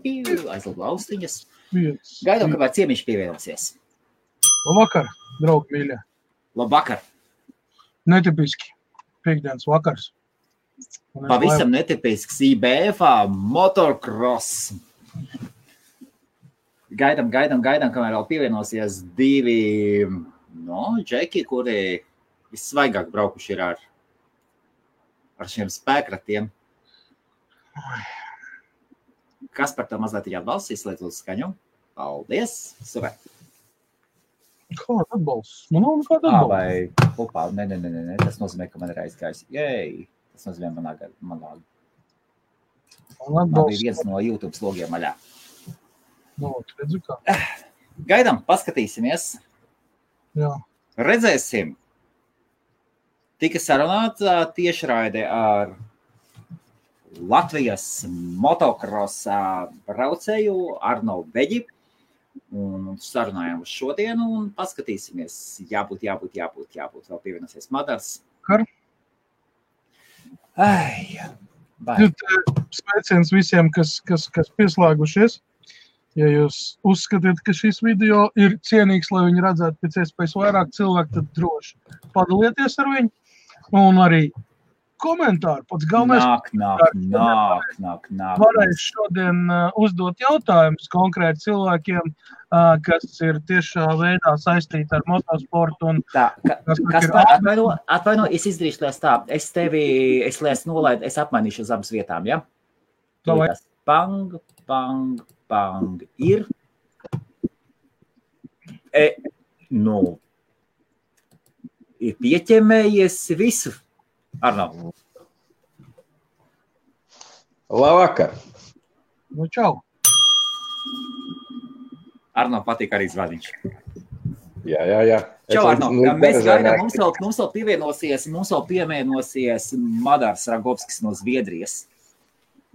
aizlūdu austiņas. Gaidām, kāpēc ciemiņš pievienosies. Labvakar, draugi mīļie. Labvakar. Netipiski. Piektdienas vakars. Pavisam netipisks IBF-ā motocross. Gaidām, kamēr vēl pievienosies divi džeki, kuri vissvaigāk braukuši ir ar šiem spēkratiem. Kas par to mazliet ir atbalsts, izslēdz uz skaņu? Paldies! Super! Kāda atbalsts? Man nav nekāda atbalsts. Vai upā? Nē. Tas nozīmē, ka man ir aizgājis. Jej! Tas nozīmē manā. Man bija viens no YouTube slogiem maļā. Redzu kā. Gaidām, paskatīsimies. Jā. Redzēsim. Tika sarunāta tiešraide ar Latvijas motocrossa braucēju Arno Beģi. Un sarunājām uz šodienu un paskatīsimies. Jābūt. Vēl pievienosies Madars. Kar? Sveiciens visiem, kas pieslēgušies. Ja jūs uzskatiet, ka šis video ir cienīgs, lai viņi redzētu pēc iespējas vairāk cilvēku, tad droši padalieties ar viņu. Un arī komentāri. Pats galvenais Nāk. Varēs šodien uzdot jautājumus konkrēti cilvēkiem, kas ir tiešā veidā saistīti ar motosportu. Un Atvaino, es izdarīšu tās tā. Es nolaidu, es apmainīšu uz abas vietām, ja? Pang, ir. Ir pieķemējies visu. Arno. Labvakar. Čau. Arno patīk arī zvaniņš. Jā. Čau, Arno. Mēs gaidām, mums vēl pievienosies Madars Ragovskis no Zviedrijas.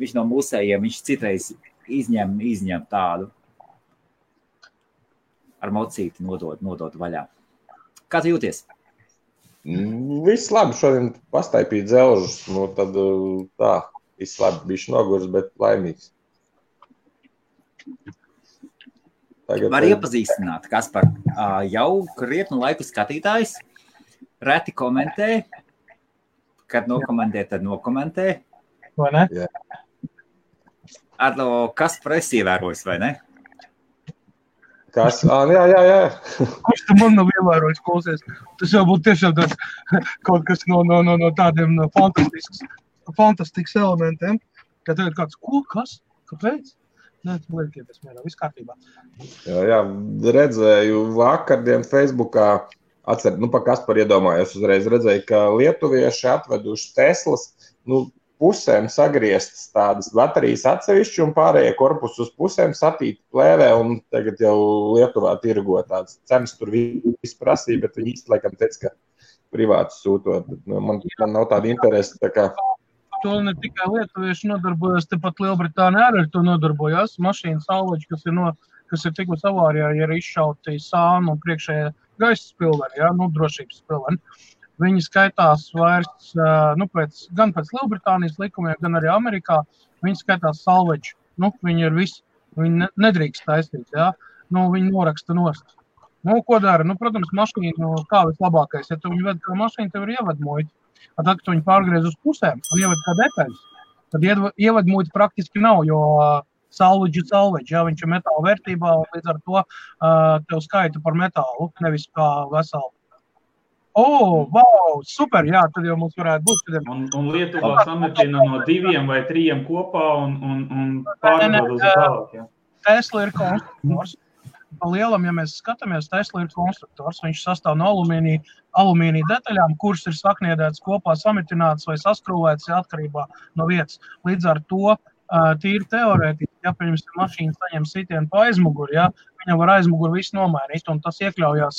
Viņš no mūsējiem, viņš citreiz izņem tādu. Ar mocīti nodot vaļā. Kā tu jūties? Viss labi, šodien pastaipīt dzelžus, tad tā, viss labi, bišķi nogurs, bet laimīgs. Var iepazīstināt, Kaspar, jau krietnu laiku skatītājs, reti komentē, kad nokomentē, tad nokomentē. Vai ne? Jā. Arno, Kaspar esi ievērojis, vai ne? Kas? Jā. Kurš tu man nav ievērojis, klausies? Tas jau būtu tiešām kaut kas no tādiem fantastisks elementiem. Kad tev ir kāds, ko? Kas? Kāpēc? Nē, tu liekieties mērā, viss kārtībā. Jā, redzēju vakardien Facebookā, pa Kaspar iedomājos uzreiz, redzēju, ka lietuvieši atveduši Teslas, pusēm sagrieztas tādas baterijas atsevišķi un pārējie korpusi uz pusēm satīti plēvē un tagad jau Lietuvā tirgo tādas cenas tur viss prasīja, bet viņi īsti laikam teica, ka privāti sūtot. Man nav tāda interese, tā kā... To ne tikai lietuvieši nodarbojas, tepat Lielbritānija arī ar to nodarbojās. Mašīna salvaģi, kas ir tikus avārijā, ja ir izšauti sānu un priekšējā gaisa spilveni, drošības spilveni. Viņi skaitās vairs, gan pēc Lielbritānijas likumiem, gan arī Amerikā, viņi skaitās salveģi. Viņi ir visi, viņi nedrīkst taisīt, viņi noraksta nost. Ko dara? Protams, mašīnu kā vislabākais, ja tu viņu ved kā mašīnu, tev ir ievadmuļi. Tad, kad tu viņu pārgriez uz pusēm un ieved kā detaļas, tad ievadmuļi praktiski nav, jo salveģi, viņš ir metāla vērtībā, un līdz ar to tev skaita par metālu, nevis kā veselu. Wow, super, jā, tad jau mums varētu būt. Un Lietuvā sametina no 2 vai 3 kopā un pārdod uz tālāk, jā. Tesla ir konstruktors. Pa lielam, ja mēs skatāmies, Tesla ir konstruktors. Viņš sastāv no alumīnija detaļām, kuras ir sakniedētas kopā, samitinātas vai saskrūvētas atkarībā no vietas. Līdz ar to tīri teorētiski, ja pirms mašīna saņem sitienu pa aizmuguri, viņam var aizmuguri visu nomainīt, un tas iekļaujās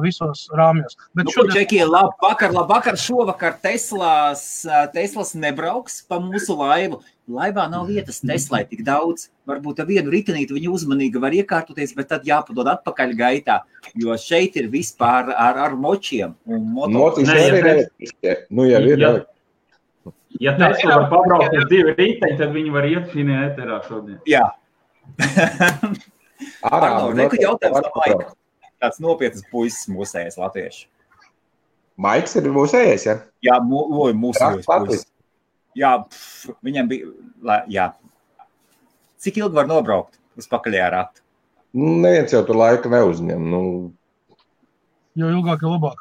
visos rāmjos. Bet Čekie, labvakar, šovakar Teslas nebrauks pa mūsu laivu. Laivā nav vietas Teslai tik daudz. Varbūt ar vienu ritenīti viņi uzmanīgi var iekārtoties, bet tad jāpadod atpakaļ gaitā, jo šeit ir vispār ar močiem. Un motis arī ir elektriskie. Ja Tesla var pabraukt uz 2 riteņi, tad viņi var iet šī ēterā šodien. Jā. Reku jautājums no Maika. Tāds nopietnas puisis mūsējais latvieši. Maiks ir mūsējais, ja? Jā, mūsējais puisis. Jā, viņam bija, jā. Cik ilgi var nobraukt uz pakaļajā ratu? Neviens jau tur laika neuzņem. Jo ilgāk ir labāk.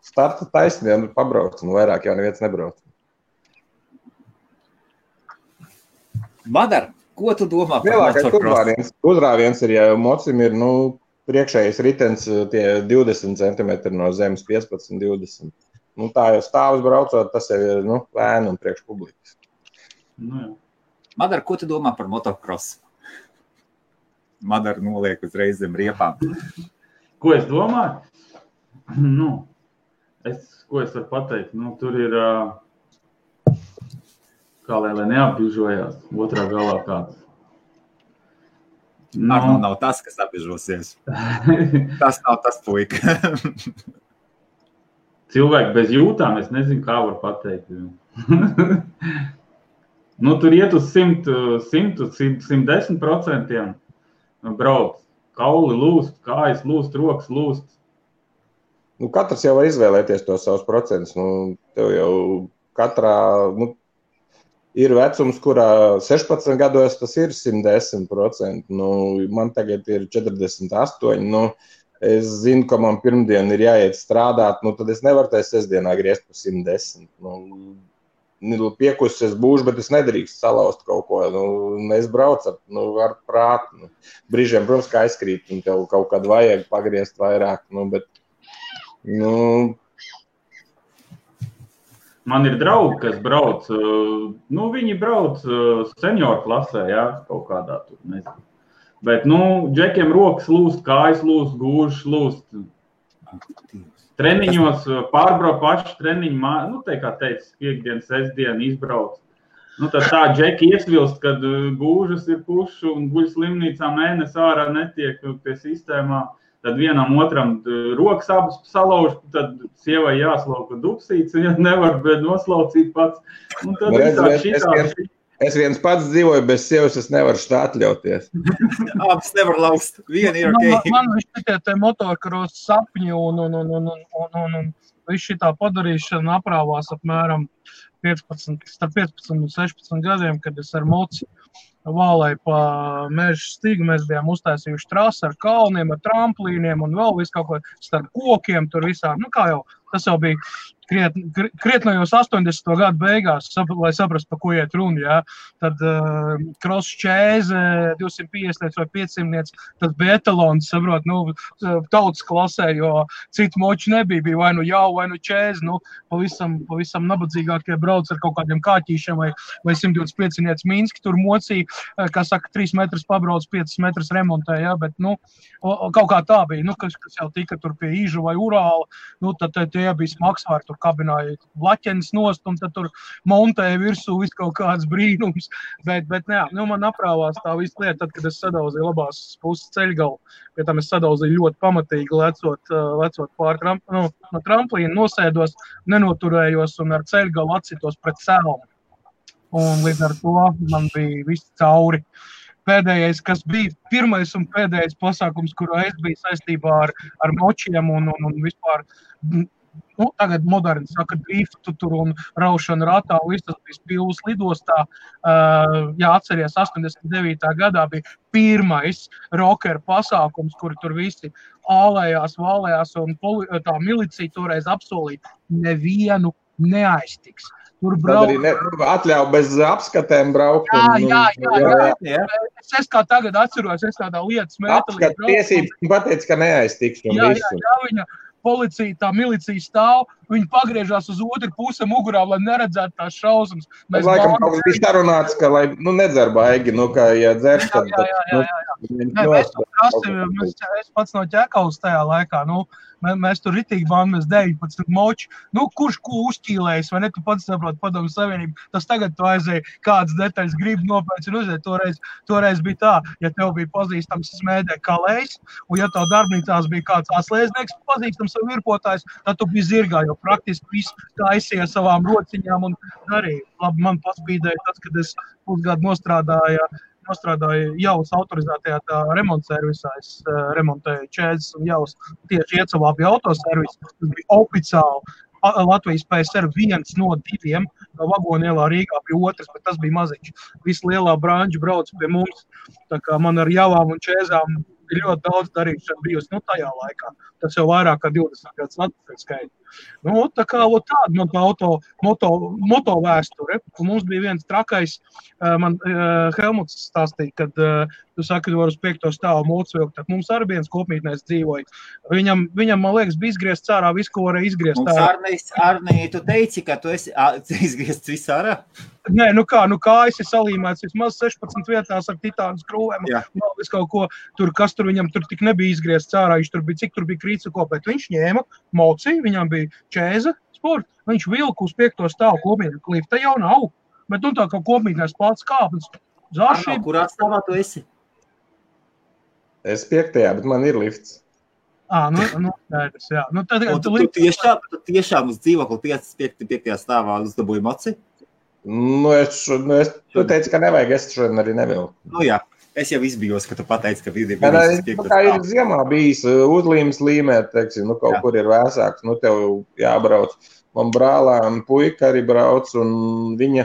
Starta taisniem pabraukt, vairāk jau neviens nebrauc. Madar, ko tu domā par motocross? Uzrāviens ir, ja mocim ir, priekšējais ritens tie 20 cm no zemes, 15-20. Tā jau stāvus braucot, tas jau ir, lēni un priekš publikas. Madar, ko tu domā par motocross? Madar noliek uzreiz zem riepām. Ko es domāju? Ko es varu pateikt? Tur ir, kā lai neapbižojās, otrā galā kāds. Nav tas, kas apbižosies. Tas nav tas puika. Cilvēki bez jūtām, es nezinu, kā var pateikt. Tur iet uz 110% brauc. Kauli lūst, kājas lūst, rokas lūst. Katrs jau var izvēlēties tos savus procentus. Tev jau katrā, ir vecums, kurā 16 gados tas ir 110%. Man tagad ir 48. Es zinu, ka man pirmdien ir jāiet strādāt, tad es nevaru tajā sestdienā griezt pa 110. Piekusis es būšu, bet es nedrīkst salauzt kaut ko. Es braucu ar prātu. Brīžiem, protams, kā aizkrīt, un tev kaut kad vajag pagriezt vairāk, bet, Man ir draugi, kas brauc, viņi brauc senioru klasē, jā, kaut kādā tur, nezinu. Bet, džekiem rokas lūst, kājas lūst, gūžas lūst. Treniņos pārbrauc paši treniņu, te, kā teica, piekdien, sestdien izbrauc. Tad tā džeki iesvilst, kad gūžas ir pušu un guļ slimnīcā mēnesi ārā netiek pie sistēmā. Tad vienam otram rokas abas salauž, tad sievai jāslauka dupsīts, ja nevar noslaucīt pats. Es viens pats dzīvoju, bez sievas es nevaru šitā atļauties. Abas nevar laust, viena ir ok. Man šitie te motocross sapņi un viss šitā padarīšana aprāvās apmēram 15 un 16 gadiem, kad es ar moci vālēju pa meža stigu, mēs bijām uztaisījuši trasi ar kalniem, ar tramplīniem un vēl visu kaut ko starp kokiem tur visā. Kā jau, tas jau bija krietnajos 80. gadu beigās, lai saprastu, pa ko iet runa, jā. Tad cross čēze, 250 vai 500, tas bija etalons, saprot, tautas klasē, jo citu moči nebija, bija vai jau, vai čēze, pavisam nabadzīgākie brauc ar kaut kādiem kāķīšiem vai 125 Minski, tur mocīja, kā saka, 3 metrus pabrauc, 5 metrus remontē, jā, bet, kaut kā tā bija, kas jau tika tur pie Īžu vai Urāla, tad tie bija smagsvāri, tur kabināja blaķenis nost, un tad tur montēja virsū visu kaut kāds brīnums, bet man aprāvās tā visu lietu, tad, kad es sadauzīju labās puses ceļgalu, pie tam es sadauzīju ļoti pamatīgi lecot pār no tramplīna, nosēdos, nenoturējos un ar ceļgalu atsitos pret sēlumu. Un līdz ar to man bija viss cauri. Pēdējais, kas bija pirmais un pēdējais pasākums, kurā es biju saistībā ar močiem un vispār, tagad moderni saka driftu tur un raušanu ratā, un viss tas bija Pilvas lidostā. Atceries, 89. gadā bija pirmais rokeru pasākums, kuri tur visi ālējās, vālējās, un tā milicija toreiz apsolīja, nevienu neaiztiks. Tur atļauj bez apskatēm braukt. Jā. Es kā tagad atceros, es tādā lietas mētelī braucu. Tiesības pateica, ka neaiztiks. Jā, policija, tā milicija stāv, viņi pagriežās uz otru pusi mugurā, lai neredzētu tās šausmas. Laikam kaut kas bija sarunāts, ka, lai nedzer baigi, ka, ja dzers, tad... Es pats no Ķekavas tajā laikā, mēs tur ritīgi bānamies 19 moči, kurš ko uzķīlējis, vai ne, tu pats saproti Padomju Savienību, tas tagad tu aizēji kādas detaļas gribi nopēc un uzēji, toreiz bija tā, ja tev bija pazīstams smēdē kalējs, un ja tev darbnīcās bija kāds atslēdznieks pazīstams savu virpotājs, tad tu biji zirgā, jo praktiski viss taisīja savām rociņām un darīja. Labi, man paspīdēja tas, kad es pusgadu nostrādāju Jaus autorizētajā remontservisā. Es remontēju čēzes un Jaus tieši Iecavā bija autoservis. Tas bija oficiāli Latvijas PSR 1 no 2, no Vagonielā Rīgā bija otrs, bet tas bija maziņš. Visa lielā branža brauc pie mums, tā kā man ar Javām un čēzām ir ļoti daudz darīšana bijusi tajā laikā. Tas jau vairāk kā 20 gadus atpakaļ skaita. Tā kā tāda man moto vēsture. Un mums bija viens trakais, man Helmuts stāstīja, kad tu saki, var uz 5. stāvu mūcu vilkt, tad mums arī viens kopmītnēs dzīvoja. Viņam, man liekas, bija izgriezt ārā visu, ko varēja izgriezt ārā. Arnī, tu teici, ka tu esi izgriezts visu ārā? Nē, kājas ir salīmēts vismaz 16 vietās ar titānu skrūvēm. Visu kaut ko, kas tur viņam tur tik nebija izgriezts ārā, cik tur bija krīca kopēt. Viņš ņēma mociju, viņam bija čēza sporta, viņš vilka uz 5. stāvu kopmītnē. Lifta jau nav, bet tā kā kopmītnēs plāts kāpnes. Arno, kurā stāvā tu esi? Es 5. bet man ir lifts. Skaidrs, jā. Tu tiešām uz dzīvokli 5. stāvā uzdabūji moci? Tu teici, ka nevajag, es šodien arī nevilku. Jā, es jau izbijos, ka tu pateici, ka bija kā ir ziemā bijis uzlīmes līmēt, teiksim, kaut kur ir vēsāks, tev jābrauc. Man brālēm puika arī brauc, un viņa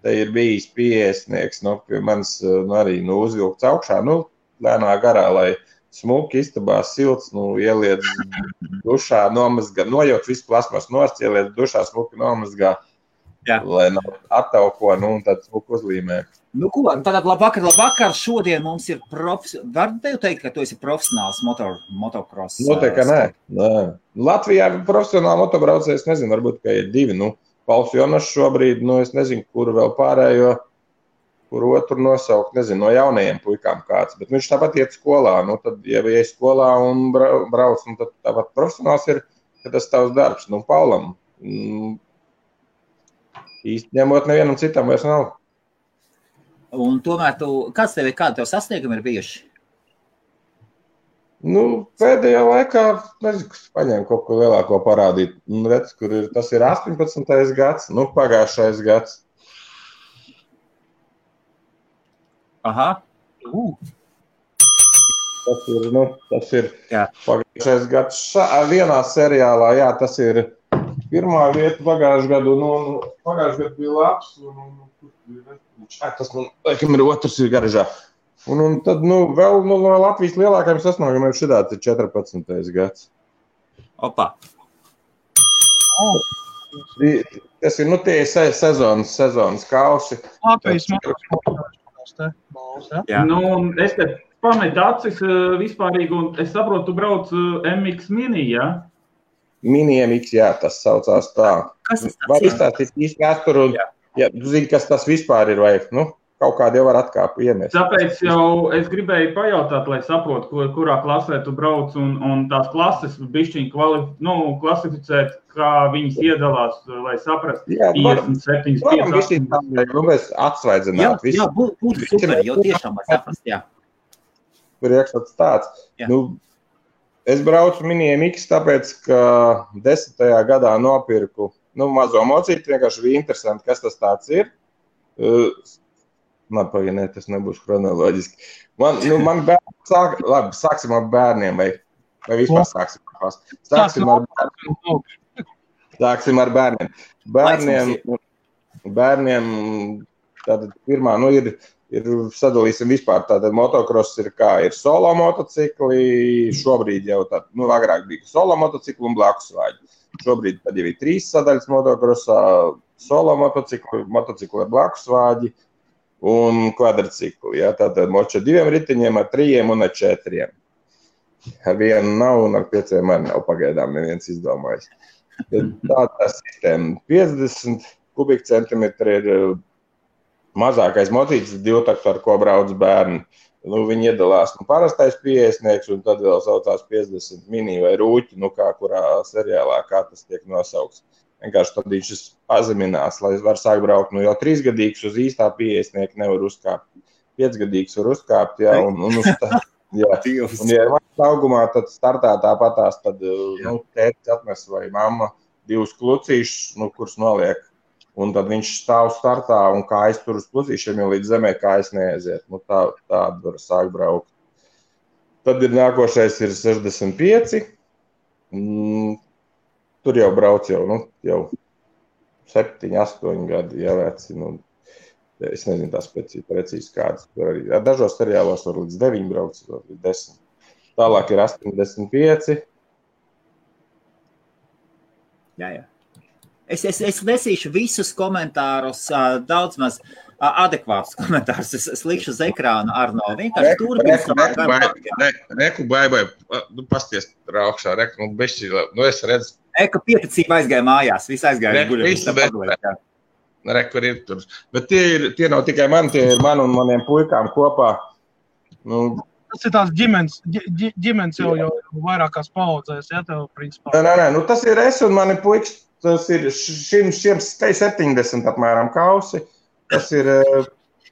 te ir bijis pieesnieks, pie manis arī uzvilkts augšā, lēnā garā, lai smuki istabās silts, ieliec dušā, nomazgā, nojauc visu plasmas nost, ieliec dušā, smuki nomazgā. Jā. Lai nav attauko, un tad smuku uzlīmē. Tātad labvakar, šodien mums ir var tev teikt, ka tu esi profesionāls motocross? Noteikti, ka nē. Latvijā profesionāli motobraucējs, nezinu, varbūt, ka ir 2, Pauls Jonas šobrīd, es nezinu, kuru vēl pārējo, kuru otru nosaukt, nezinu, no jaunajiem puikām kāds, bet viņš tāpat iet skolā, tad, ja iet skolā un brauc, tad tāpat profesionāls ir, ka tas tavs darbs, Paulam. Īsti ņemot nevienam citam vairs nav. Un tomēr kādi tev sasniegumi ir bijuši? Pēdējā laikā, nezinu, kas paņēma kaut ko lielāko parādīt. Redz, tas ir 18. gads, pagājušais gads. Aha. Tas ir pagājušais gads. Vienā seriālā, tas ir pirmā vieta pagājušajā gadu, pagājušajā gadu bija labs, tas, laikam, ir otrs ir garažā. Un tad, vēl no Latvijas lielākajiem sasniegumiem šitāds ir 14. gads. Opa! Tas ir, tie ir sezonas kausi. Latvijas es te pametu acis vispārīgi, un es saprotu, tu brauc MX Mini, jā? Mini MX, tas saucās tā. Kas tas var izstāstīt īsti vēsturu, tu zini, kas tas vispār ir, vai kaut kādi jau var atkāpu iemest. Tāpēc jau es gribēju pajautāt, lai saprotu, kurā klasē tu brauc, un tās klases bišķiņ klasificēt, kā viņas iedalās, lai saprast 57, 58. Mēs atsvaidzināt visu. Jā, būtu super, jau tiešām var saprast, jā. Priekšstats tāds. Es braucu Mini MX, tāpēc, ka 10. gadā nopirku mazo mocīti, vienkārši bija interesanti, kas tas tāds ir. Tas nebūs chronoloģiski. Man bērni sāksim ar bērniem, vai vispār sāksim ar bērniem. Bērniem tātad pirmā, ir sadalīsim vispār, tātad motocross ir ir solo motocikli, šobrīd jau agrāk bija solo motocikli un blakusvāģi. Šobrīd tad jau ir 3 sadaļas motocrossā, solo motocikli ar blakusvāģi un kvadricikli, tātad moči ar 2 ritiņiem, ar 3 un ar 4. Ar 1 nav un ar 5 arī nav pagaidām neviens izdomājis. Tā sistēma 50 kubikcentimetri ir mazākais motīts, 2 taktu, ar ko brauc bērni. Viņi iedalās parastais pieeisnieks, un tad vēl saucās 50 mini vai rūķi, kā kurā seriālā, kā tas tiek nosaukts. Vienkārši tad viņš pazeminās, lai var sākt braukt. Jau 3-gadīgs uz īstā pieeisnieka nevar uzkāpt. 5-gadīgs var uzkāpt, jā, un uz tā. Jā, un ja ir manas augumā, tad startā tāpatās, tad tētis atnes vai mamma 2 klucīšus, kurus noliek. Un tad viņš stāv startā un kājas tur uz klucīšiem, jo līdz zemē kājas neaiziet. Tādu var sākt braukt. Tad ir nākošais ir 65. Tur jau brauc jau 7, 8 gadi, ja veci. Es nezinu tās precīzi kādas. Dažos seriālos var līdz 9 brauc, var līdz 10. Tālāk ir 85. Jā. Es nesīšu visus komentārus, daudz maz adekvātus komentārus. Es likšu uz ekrānu Arno. Vienkārši Reku, bai, pasties raukšā, es redzu. Eka pieticība aizgāja mājās, viss aizgāja guļot. Reku ir tur. Bet tie nav tikai mani, tie ir man un maniem puikām kopā. Tas ir tās ģimenes jau vairākās paudzēs, ja tev principā? Nē, tas ir es un mani puikas. Tas ir šiem 70 apmēram kausi. Tas ir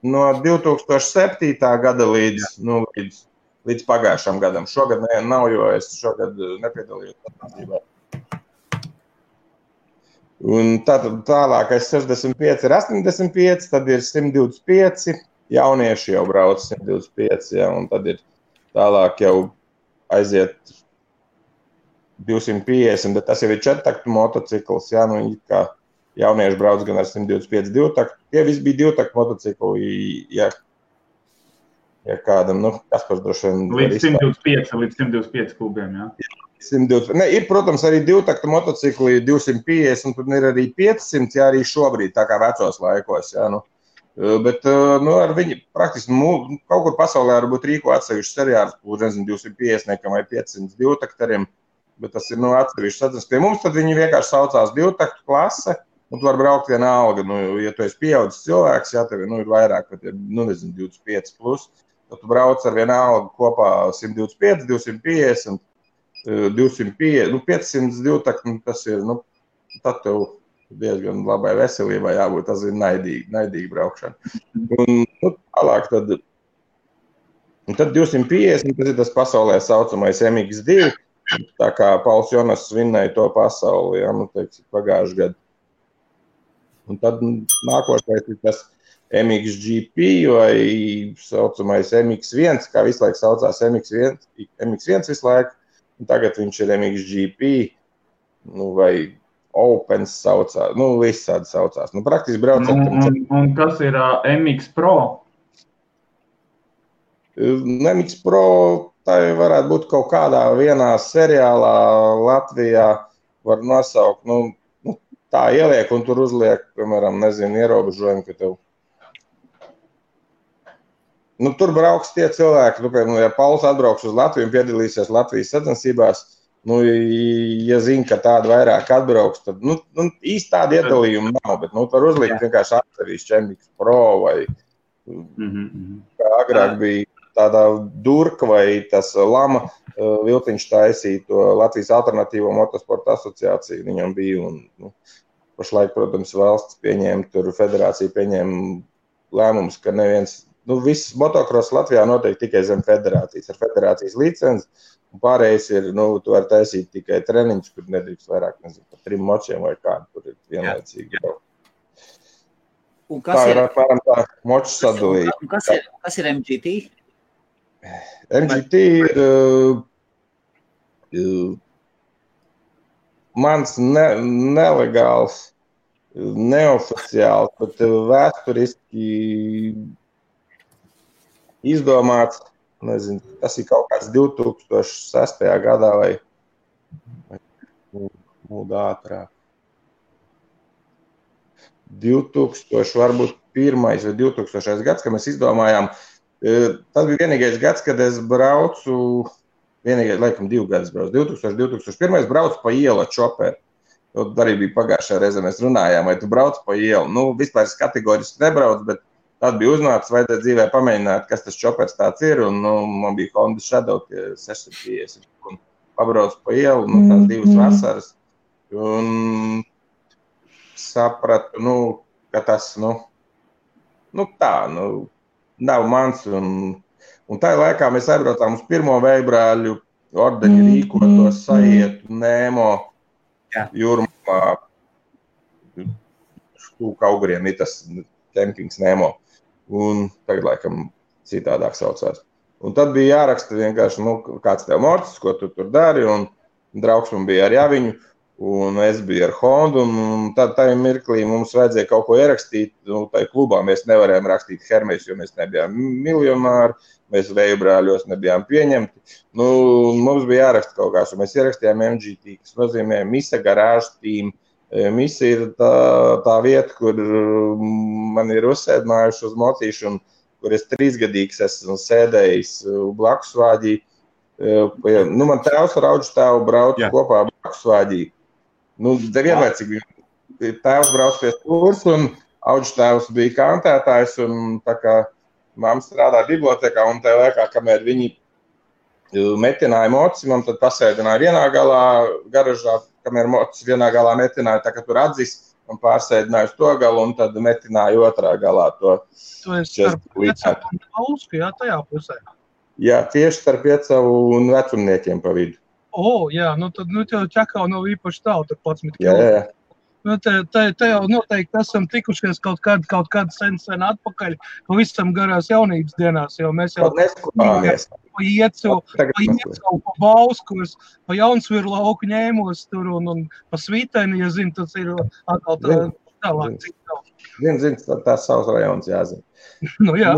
no 2007. Gada līdz pagājušam gadam. Šogad nav, jo es šogad nepiedalījos sacensībā. Un tālākais 65 ir 85, tad ir 125. Jaunieši jau brauc 125, ja, un tad ir tālāk jau aiziet 250, bet tas jau ir 4-taktu motocikls, jā, kā jaunieši brauc gan ar 125 2-taktu. Tie visi bija 2-taktu motocikli, ja kādam, Kaspars droši vien... Līdz 125 kubiem, jā. 120. Ir, protams, arī 2-taktu motocikli 250, un tur ir arī 500, jā, arī šobrīd, tā kā vecos laikos, jā, Bet ar viņu praktiski kaut kur pasaulē varbūt rīko atsevišķu seriālus, 250 vai 500 2-taktariem, bet tas ir atsevišķs sacensības. Pie mums tad viņi vienkārši saucās 2-taktu klase, un tu var braukt vienalga. Ja tu esi pieaudzis cilvēks, ja tev ir vairāk, pat ir, 25 plus, tad tu brauc ar vienalga kopā 125, 250, 250, 500 2-taktu, tas ir, tad tev diezgan labai veselībai jābūt, tas ir naidīgi braukšana. Un tālāk tad 250, tas ir tas pasaulē saucamais MX2, tā kā Pauls Jonas vinnēja to pasauli, ja, pagājuši gadu. Un tad nākošais ir tas MXGP vai saucamais MX1, kā visu laiku saucās MX1 visu laiku, un tagad viņš ir MXGP, vai Opens saucās, visādi saucās. Praktiski brauc un kas ir MX Pro? MX Pro, tā varētu būt kaut kādā vienā seriālā Latvijā var nosaukt, tā ieliek un tur uzliek, piemēram, ierobežojumu, ka tev. Tur brauks tie cilvēki, piemēram, ja Pauls atbrauks uz Latviju un piedalīsies Latvijas sacensībās, ja zina, ka tāda vairāk atbrauks, tad, īsti tāda iedalījuma nav, bet, var uzlikt vienkārši atsevišķi MX Pro vai, kā agrāk bija tādā Durka vai tas Lama Viltiņš taisīja to Latvijas alternatīvo motosporta asociāciju, viņam bija, un, pašlaik, protams, valsts pieņēma, tur federācija pieņēma lēmumus, ka neviens, viss motocross Latvijā notiek tikai zem federācijas, ar federācijas licenci. Un pārējais ir, tu vari taisīt tikai treniņus, kur nedrīkst vairāk, par 3 močiem vai kādu, tur ir vienlaicīgi. Tā ir apmēram tā moču sadalījuma. Kas ir MGT? MGT ir mans nelegāls, neoficiāls, bet vēsturiski izdomāts. Nezinu, tas ir kaut kāds 2006. Gadā vai ātrāk. 2000 varbūt 1. vai 2000. Gads, kad mēs izdomājām. Tas bija vienīgais gads, kad es braucu, laikam 2 gadus braucu. 2001. braucu pa ielu ar čoperu. Arī bija pagājušajā reizē, mēs runājām, vai tu brauc pa ielu. Vispār es kategoriski nebraucu, bet Tad bija uznācis, vajadzēja dzīvē pamēģināt, kas tas čopers tāds ir, un man bija Honda Shadow 650, un pabraucu pa ielu, tās 2 vasaras, un sapratu, ka tas, nav mans, un tā laikā mēs aizbraucām uz pirmo veibrāļu ordeņu rīkoto Saietu Nēmo jūrmā, Kauguriem ir tas kempings Nēmo, un tagad laikam citādāk saucās. Un tad bija jāraksta vienkārši, kāds tev morcis, ko tu tur dari, un draugs man bija ar Javiņu, un es biju ar Hondu, un tad tajā mirklī mums vajadzēja kaut ko ierakstīt, tai klubā mēs nevarējām rakstīt Hermes, jo mēs nebijām miljonāri, mēs veibrāļos nebijām pieņemti. Mums bija jāraksta kaut kāds, un mēs ierakstījām MGT, kas nozīmē Misa Garage Team. Misa ir tā vieta, kur man ir uzsēdinājuši uz mocīšu, un kur es 3-gadīgs esmu sēdējis blakus vāģī. Man tēvs ar auģu tēvu brauc kopā blakus vāģī. Vienlaicīgi tēvs brauc pie stūrs, un auģu tēvs bija kantētājs, un tā kā mamma strādā bibliotekā, un tajā laikā, kamēr viņi metināja moci, man tad pasēdināja vienā galā garažā, kamēr mocis vienā galā metināja, tā kā tur atzis, un pārsēdināja uz to galu, un tad metināja otrā galā to. Tu esi starp Piecavu un Ausku, tajā pusē? Jā, tieši starp Piecavu un vecumniekiem pa vidu. Jā, tad tev Čakau nav īpaši tālu, tur 11 Jā. kilometri. Te jau noteikti esam tikušies kaut kad sen atpakaļ, pavisam garās jaunības dienās, jo mēs jau neskopāmies. Pa Iecu, pa Bauskos, pa Jaunsviru lauku ņēmos tur un pa Svīteni, ja zinu, tas ir atkal tālāk cik tālu. Zinu, tās savs rajons jāzina. Jā.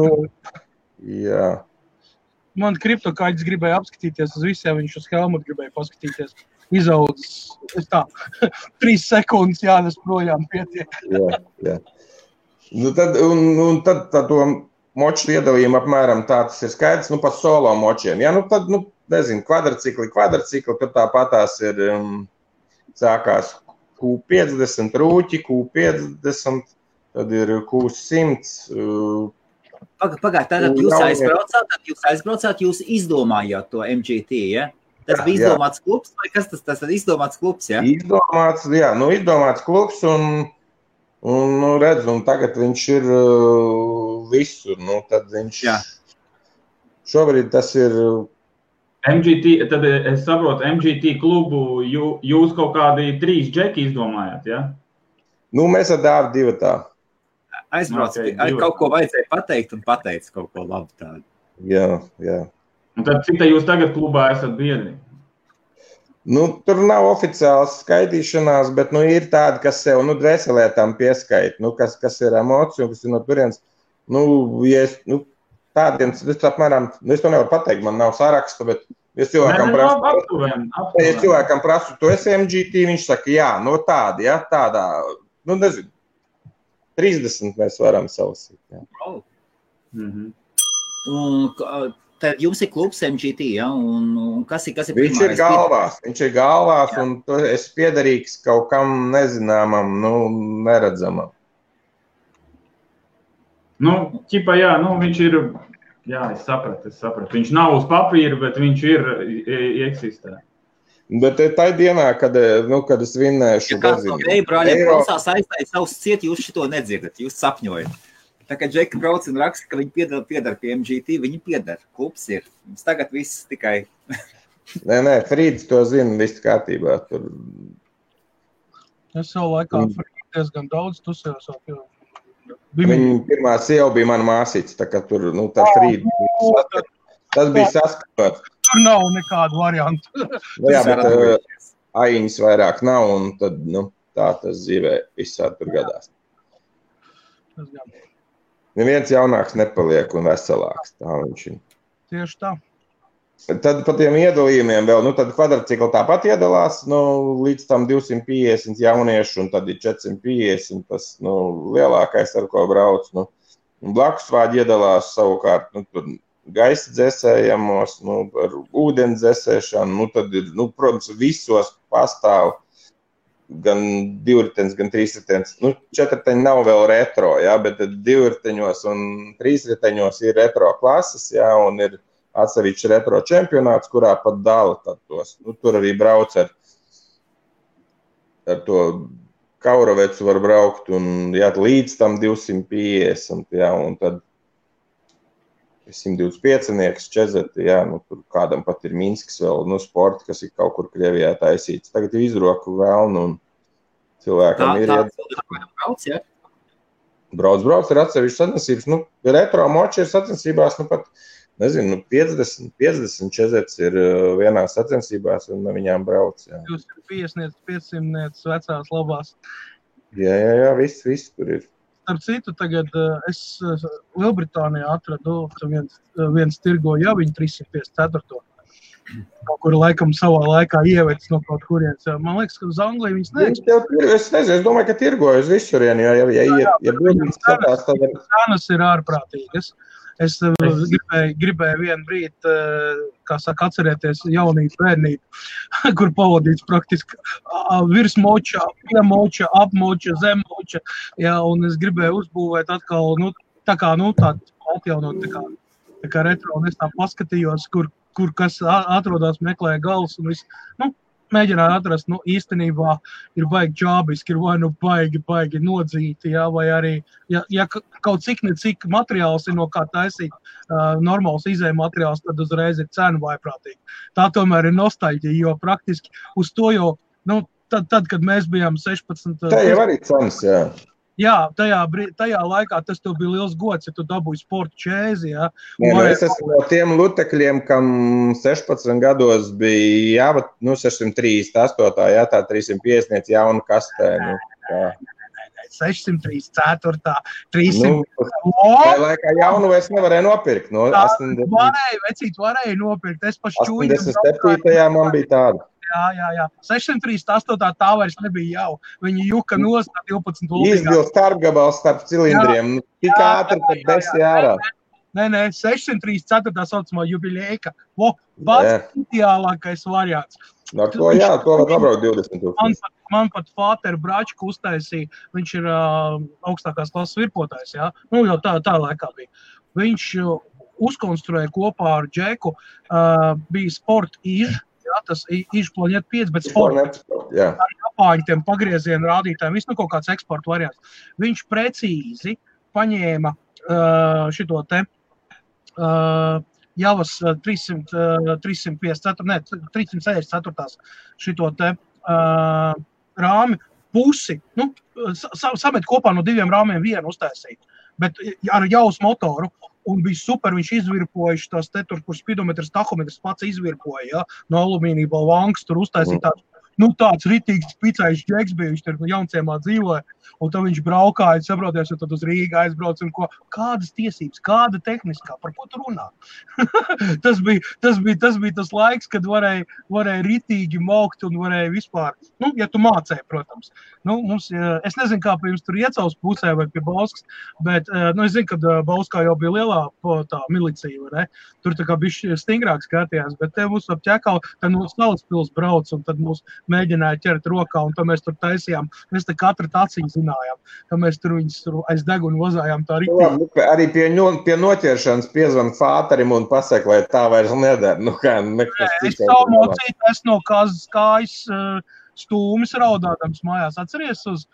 Jā. Man kriptokaļģis gribēja apskatīties uz visiem, viņš uz Helmutu gribēja paskatīties. Izaudzis, 3 sekundes jānes projām pietiek. Jā. Tad to moču iedalījumu apmēram tā tas ir skaidrs, pa solo močiem. Jā, tad, nezinu, kvadrcikli, tur tāpatās ir sākās Q50 rūķi, Q50, tad ir Q100. Pagāj, tad jūs aizbraucāt, jūs izdomājāt to MGT, ja? Tas bija izdomāts klubs, vai kas tas ir izdomāts klubs, ja? Izdomāts klubs, un redz, un tagad viņš ir visur, tad viņš, šobrīd tas ir... MGT, tad es saprotu, MGT klubu jūs kaut kādi 3 džeki izdomājāt, ja? Mēs ar Dāvu divatā. Aizbrauc, kaut ko vajadzēja pateikt un pateica kaut ko labu tādu. Jā. Un tad cik jūs tagad klubā esat biedri? Tur nav oficiāls skaitīšanās, bet ir tādi, kas sev dvēselē tam pieskaita, kas ir emocija, kas ir no turienes. Tādiem, es apmēram, es to nevaru pateikt, man nav saraksta, bet es cilvēkam prasu, tu esi MGT, viņš saka, jā, tādi, ja, tādā, nezinu. 30 mēs varam salasīt. Tad jums ir klubs MGT, ja? Un kas ir Viņš ir galvās, un es piederīgs kaut kam nezināmam, neredzamam. Viņš ir, es sapratu. Viņš nav uz papīra, bet viņš ir eksistē. Bet tā dienā, kad es vinnēšu... Ja kāds no veibrāļiem klausās aizstāja savus ciet, jūs šito nedzirdat, jūs sapņojat. Tā kā Džeki brauc un raksta, ka viņi piedar pie MGT, viņi piedar, klubs ir. Mums tagad viss tikai... Nē, Frīds to zina, viss kārtībā. Tur... Es jau laikā Frīds diezgan daudz tusējos. Viņa pirmā sieva bija mana māsīca, tā kā tur, tā Frīds. Tas bija saskatot. Tur nav nekādu variantu. Jā, bet aiņas vairāk nav, un tad, tā tas dzīvē visādi tur gadās. Neviens jaunāks nepaliek un veselāks, tā viņš ir. Tieši tā. Tad pa tiem iedalījumiem vēl, tad kvadrcikli tāpat iedalās, līdz tam 250 jauniešu, un tad ir 450, tas, lielākais, ar ko brauc, blakus vāģi iedalās savukārt, tur gaisa dzēsējamos, ar ūdens dzēsēšanu, tad ir, protams, visos pastāv gan divriteņs, gan trīsriteņs. Nu, četriteņi nav vēl retro, jā, bet divriteņos un trīsriteņos ir retro klases, jā, un ir atsevišķi retro čempionāts, kurā pat dala tad tos. Nu, tur arī brauc ar to Kaurovecu var braukt un jā, līdz tam 250, jā, un tad 125-nieks, čezeti, jā, nu, tur kādam pat ir Minskis vēl, nu, sporti, kas ir kaut kur Krievijā taisīts. Tagad ir izroku vēlnu un cilvēkam ir brauc, jā? Brauc ir atsevišķi sacensības. Nu, retro moči ir sacensībās, nu, pat, nezinu, 50 čezets ir vienās sacensībās un viņām brauc, jā. 250, 500 vecās labās. Jā, viss tur ir. Starp citu, tagad es Lielbritānijā atradu viens tirgo jau viņa 354. Kaut kur laikam savā laikā ievedis no kaut kurienes. Man liekas, ka uz Angliju viņas neeksistē. Es nezinu, es domāju, ka tirgoju uz visurien, ja brīdīs skatās, tad ir... Cenas ir ārprātīgas. Es gribēju vienu brīdi, kā saka, atcerēties jaunību, bērnību, kur pavadīts praktiski virsmoča, piemoča, apmoča, zemmoča. Jā, un es gribēju uzbūvēt atkal, nu, tā kā, nu, tā atjaunot, tā kā retro, un es tā paskatījos, kur kas atrodas, meklēja galvas un viss, nu, mēģināju atrast, nu, īstenībā ir baigi džābiski, ir vai nu baigi nodzīti, jā, vai arī, ja kaut cik necik materiāls ir no kā taisīt normāls izēja materiāls, tad uzreiz ir cena vaiprātīgi. Tā tomēr ir nostalģija, jo praktiski uz to jau, nu, tad kad mēs bijām 16... Tā jau arī cenas, jā. Jā, tajā laikā tas tev bija liels gods, ja tu dabūji sporta čēzi, jā. Es esmu no tiem lutekļiem, kam 16 gados bija, jā, nu, 638, jā, tā 350 jauna kastē, nu, jā. 634, 300... Tajā laikā jaunu es nevarēju nopirkt, no 80... Varēja nopirkt, es paši čūju... 87. man bija tāda. Jā. 638. tā vairs nebija jau. Viņi juka nost 12 lūdīgā. Izbil starpgabals starp cilindriem. Tik ātri, kad desi ārā. Nē, 634. saucamā jubilēka. Pats ideālākais variants. Ar to, jā, to var nobraukt 20 000. Man pat Fāter Bračku uztaisīja. Viņš ir augstākās klases virpotājs, jā. Nu, jau tā laikā bija. Viņš uzkonstruēja kopā ar Džeku, bija sport īž. Jā, tas izplaņiet 5, bet sports. Ar Japāņu tiem pagriezienu rādītājiem, viss nu kaut kāds eksporta variants. Viņš precīzi paņēma šito te Javas 364. šito te rāmi pusi, nu, samet kopā no 2 rāmiem vienu uztaisīt, bet ar Javas motoru. Un bija super, viņš izvirpoja tās te tur, kur spidometrs, tahometrs pats izvirpoja, ja, no alumīnija balvankas, tur uztaisīja tāds, nu, tāds ritīgs picējs džeks bija, viņš tur jaunciemā dzīvoja, un tad viņš braukāja, saproties, un tad uz Rīgu aizbrauc, un ko, kādas tiesības, kāda tehniskā, par ko tu runā? tas bija tas laiks, kad varēja ritīgi maukt un varēja vispār, nu, ja tu mācēji, protams. Nu, mums, es nezinu, kā pie jums tur Iecavas pusē vai pie Bauskas, bet, nu, es zinu, kad Bauskā jau bija lielā tā milicija, vai ne? Tur tā kā bišķi stingrāk skatījās, bet te mūs ap Ķekau, tad mūs Salaspils brauc, un tad mūs mēģināja ķert rokā, un tad mēs tur taisījām, mēs te katra taciņu zinājām, tad mēs tur viņus aiz degunu vazājām tā ritīgi. Arī pie noķeršanas piezvan Fāterim un pasaka, lai tā vairs nedara. Nu, kā, es savu mocīju, es no kājas stūmis raudādams mājās. Atceries uz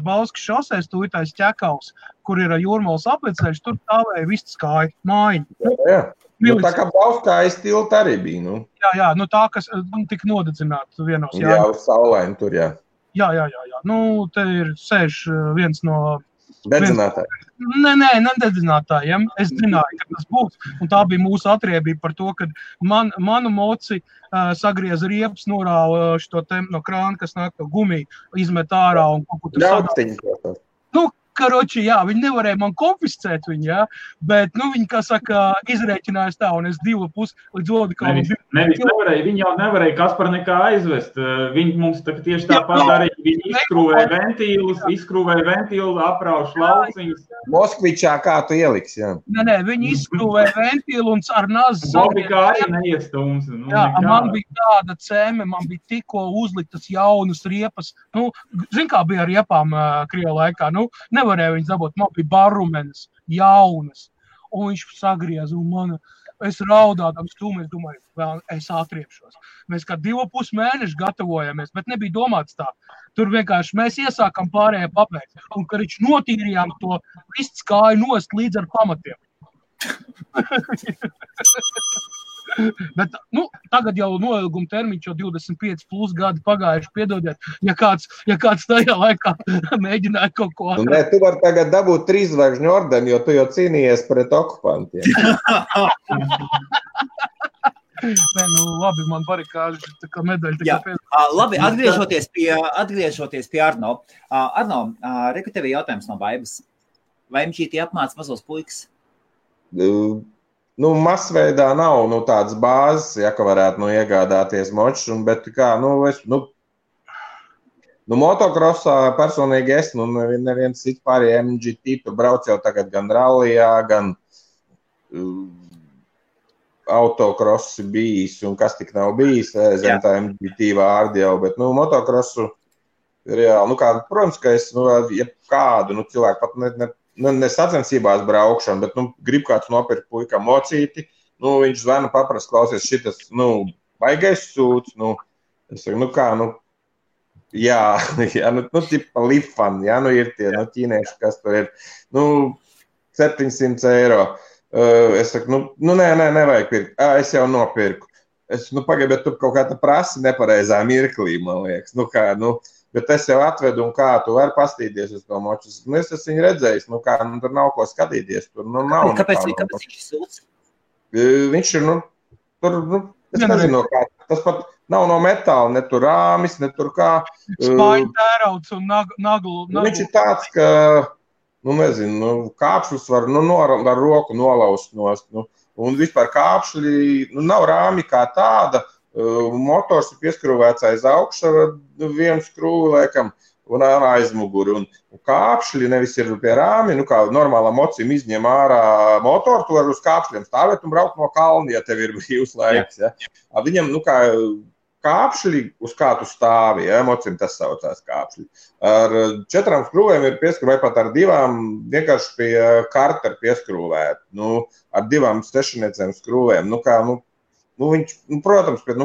Bauskas šosēs tūjtais Ķekaus, kur ir Jūrmalas apveceļš, tur stāvēja viss kāja, mājiņa. Jā. Nu, tā kā Bauskā tilta arī bija, nu. Jā, nu tā, kas tika nodedzināta vienos. Jā, uz saulaini tur, jā. Jā. Nu, te ir sēž viens no... Dedzinātāji. Nē, nededzinātājiem. Es zināju, ka tas būs. Un tā bija mūsu atriebība par to, ka manu moci sagrieza riepas, norāva šito te no krāna, kas nāk to gumiju, izmet ārā un kaut ko tur sadāja. Nu, karoči, jā, viņi nevarēja man konfiscēt viņu, jā, bet, viņi, kā saka, izrēķinājās tā, un es 2,5 līdz Odikalam. Nevis nevarēja, viņi jau nevarēja Kaspar nekā aizvest. Viņi mums tieši tāpat darīja, viņi izskrūvēja ventīlu, aprauš lauciņus. Moskvičā kā tu ieliks, jā? Nē, viņi izskrūvēja ventīlu un ar nazi Bobikā arī neiestums. Jā, man bija tāda cēme, man bija tikko uzliktas jaunas riepas. Zin kā bija ar riepām Krievu laikā, nevarēja viņas dabūt, man bija barumenes, jaunas. Un viņš sagriez, un es raudādams stūmēs, domāju, vēl es atriepšos. Mēs kā 2,5 mēneši gatavojamies, bet nebija domāts tā. Tur vienkārši mēs iesākam pārējā papēc, un kad viņš notīrījām to viss kāju nost līdz ar pamatiem. Bet, tagad jau noilguma termiņš jau 25 plus gadi pagājuši, piedodiet, ja kāds tajā laikā mēģināja kaut ko. Nē, tu vari tagad dabūt 3 zvaigžņu ordeni, jo tu jau cīnījies pret okupantiem. Nē, labi, man barikāži, tā kā medaļa. Labi, atgriežoties pie Arno. Arno, reku tev jautājums no Vaibas. Vai MGT apmāca mazos puikas? Masveidā nav tādas bāzes, ja ka varētu iegādāties močus, bet kā, motokrosā personīgi es, neviens cits pārējie MGT, tu brauc jau tagad gan rallijā, gan autokrossi bijis, un kas tik nav bijis, zem tā MGT vārdi jau, bet, motokrosu reāli, protams, ka es, ja kādu, cilvēku pat ne sacensībās braukšanu, bet, grib kāds nopirkt puikam mocīti, viņš zvana paprast, klausies šitas, baigais sūds, es saku, jā, tipa lifan, jā, ir tie, ķīnieši, kas tur ir, 700 eiro. Es saku, nē, nevajag pirkt, es jau nopirku. Es, pagaid, bet tu kaut kā tā prasi nepareizā mirklī, man liekas, bet es jau atvedu, un kā tu vari pastīties uz to moču. Es esmu viņu redzējis, tur nav ko skatīties. Tur nav. Kāpēc viņš ir sūds? Viņš ir, tur, es nezinu, kā. Tas pat nav no metāla, ne tur rāmis, ne tur kā. Spāņu tērauds un naglu. Viņš ir tāds, ka, nezinu, kāpšļus var, ar roku nolaust nost. Un vispār kāpšļi, nav rāmi kā tāda. Motors ir pieskrūvēts aiz augšu ar vienu skrūvi, laikam, un aizmuguri. Un kāpšļi nevis ir pie rāmi, kā normālā mocim izņem ārā motoru, tu var uz kāpšļiem stāvēt un braukt no kalna, ja tev ir brīvs laiks. Ja. Viņam, kā kāpšļi, uz kā tu stāvi, ja, mocim tas saucās kāpšļi. Ar 4 skrūvēm ir pieskrūvēt, pat ar 2 vienkārši pie karta ir pieskrūvēt. Ar 2 stešaniecēm skrūvēm, viņš, protams, bet,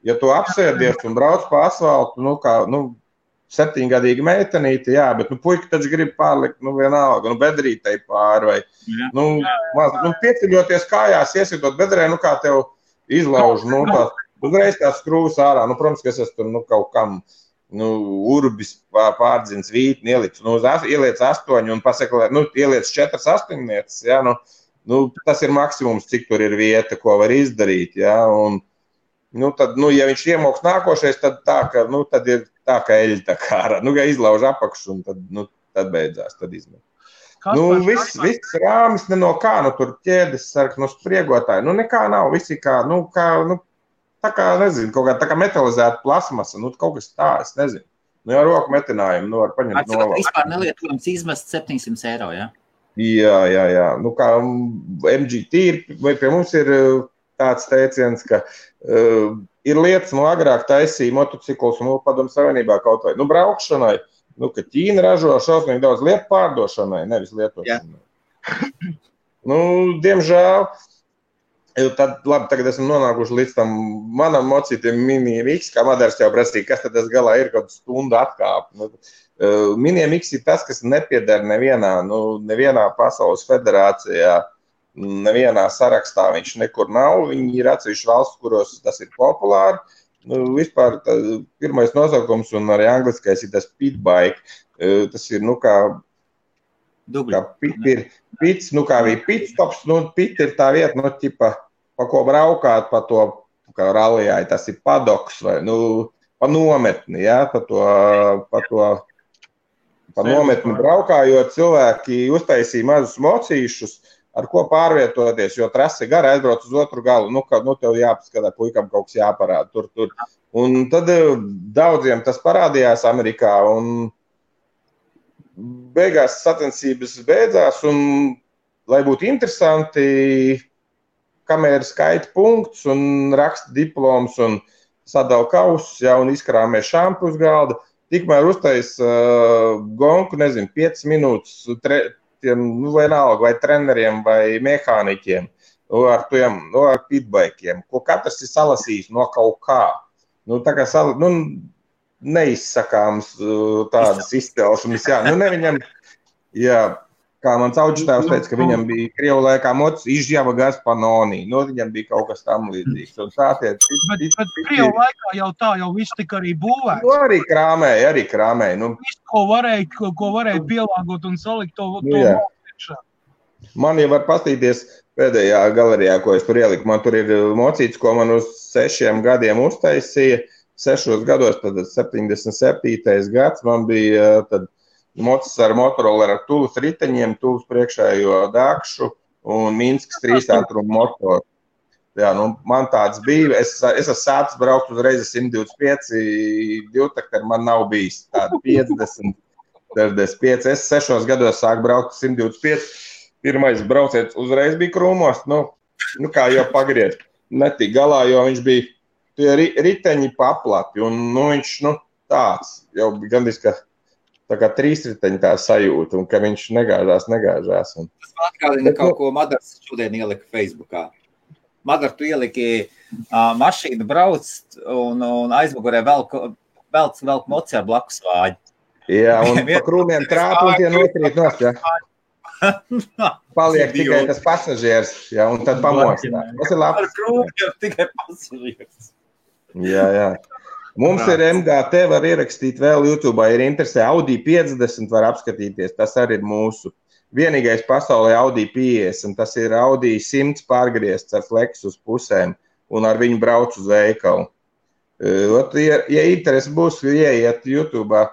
ja tu apsēdies un brauc pa asfaltu, 7-gadīga meitenīte, jā, bet, puika taču grib pārlikt, vienalga, bedrītei pāri, vai, pieceļoties kājās, iesitot bedrē, kā tev izlauž, uzreiz tās skrūvas ārā, protams, ka es esmu tur, kaut kam, urbis pārdzins vītni, ieliec 8 un pasaka, ieliec 4 astoņnieces, jā, tas ir maksimums, cik tur ir vieta, ko var izdarīt, ja, un, tad, ja viņš iemoks nākošais, tad tā, ka, tad ir tā, ka eļi tā kā, ja izlauž apakšu, un tad beidzās, tad izmet. Viss rāmis ne no kā, tur ķēdes sark, spriegotāji, nekā nav, visi kā, tā kā, nezinu, kaut kā tā kā metalizēta plasmasa, kaut kas tā, es nezinu. Jau roku metinājumu, var paņemt nolaust. Vispār nelietojams izmest 700 eiro, ja? Jā. Kā MGT vai pie mums ir tāds teiciens, ka ir lietas, agrāk taisīja motociklus, padomu savienībā kaut vai, braukšanai, ka Ķīna ražo šausmīgi daudz lietu pārdošanai, nevis lietošanai. Diemžēl, tad, labi, tagad esam nonākuši līdz tam manam mocītiem Mini MX, kā Madars jau prasīja, kas tad tas galā ir, kaut stundu atkāp. Mini MX ir tas, kas nepieder nevienā pasaules federācijā, nevienā sarakstā viņš nekur nav. Viņi ir atsevišķi valsts, kuros tas ir populāri. Vispār pirmais nosaukums un arī angliskais ir tas pitbike. Tas ir, kā pit ir pits, kā bija pitstops, pit ir tā vieta, ķipa, pa ko braukāt, pa to, kā rallijā, tas ir padoks vai, pa nometni, jā, pa to pa nometni braukājot, cilvēki uztaisīja mazus mocīšus, ar ko pārvietoties, jo trase gara aizbrauc uz otru galu. Tev jāpaskatā, puikam kaut kas jāparāda tur. Un tad daudziem tas parādījās Amerikā, un beigās sacensības beidzās, un, lai būtu interesanti, kamēr skaita punktus un raksta diploms un sadala kausus, un izkrāmē šampu uz galda, tikmēr uztais gonku, 5 minūtes vienalga vai treneriem vai mehāniķiem, ar pitbaikiem, ko katrs ir salasījis no kaut kā. Tā kā neizsakāms tādas izcelšanas, ne viņam, kā mans auģitājs teica, ka viņam bija Krievu laikā mocis izžjava Gaspanoni, viņam bija kaut kas tam līdzīgs. Bet Krievu laikā jau viss tika arī būvēts. Arī krāmēja. Viss, ko varēja pielāgot un salikt to mocīšā. Man jau var pastīties pēdējā galerijā, ko es tur ieliku. Man tur ir mocīts, ko man uz 6 gadiem uztaisīja. 6 gados, tad 77. gads, man bija tad mocis ar Motorola ar Tulas riteņiem, Tulas priekšējo dākšu un Minskas 3 ātrumu motoru. Man tāds bija. Es esmu sācis braukt uzreiz 125, divtakti man nav bijis. Tāda 50, 45. Es 6 gados sāku braukt 125. Pirmais brauciets uzreiz bija krūmos. Kā jau pagriezt. Netik galā, jo viņš bija tie riteņi paplati. Un viņš tāds jau bija gandrīz, ka tā kā 3 riteņi tā sajūta, un ka viņš negāžās. Un... Tas man atgādina kaut ko Madars šodien ielika Facebookā. Madar, tu ieliki mašīnu brauc un aizmugurē velk moci ar blakus vāģi. Jā, un pa krūmiem trāpa un tie nokrīt nost, Paliek tikai tas pasažieris, un tad pamostā. Tas ir labs. Ar krūmiem tikai pasažieris. Jā. Mums ir MGT, var ierakstīt vēl YouTube, ir interesē. Audi 50 var apskatīties, tas arī ir mūsu. Vienīgais pasaulē Audi 50, tas ir Audi 100 pārgriezts ar flex uz pusēm un ar viņu brauc uz veikalu. Ja interesi būs, ieiet YouTube,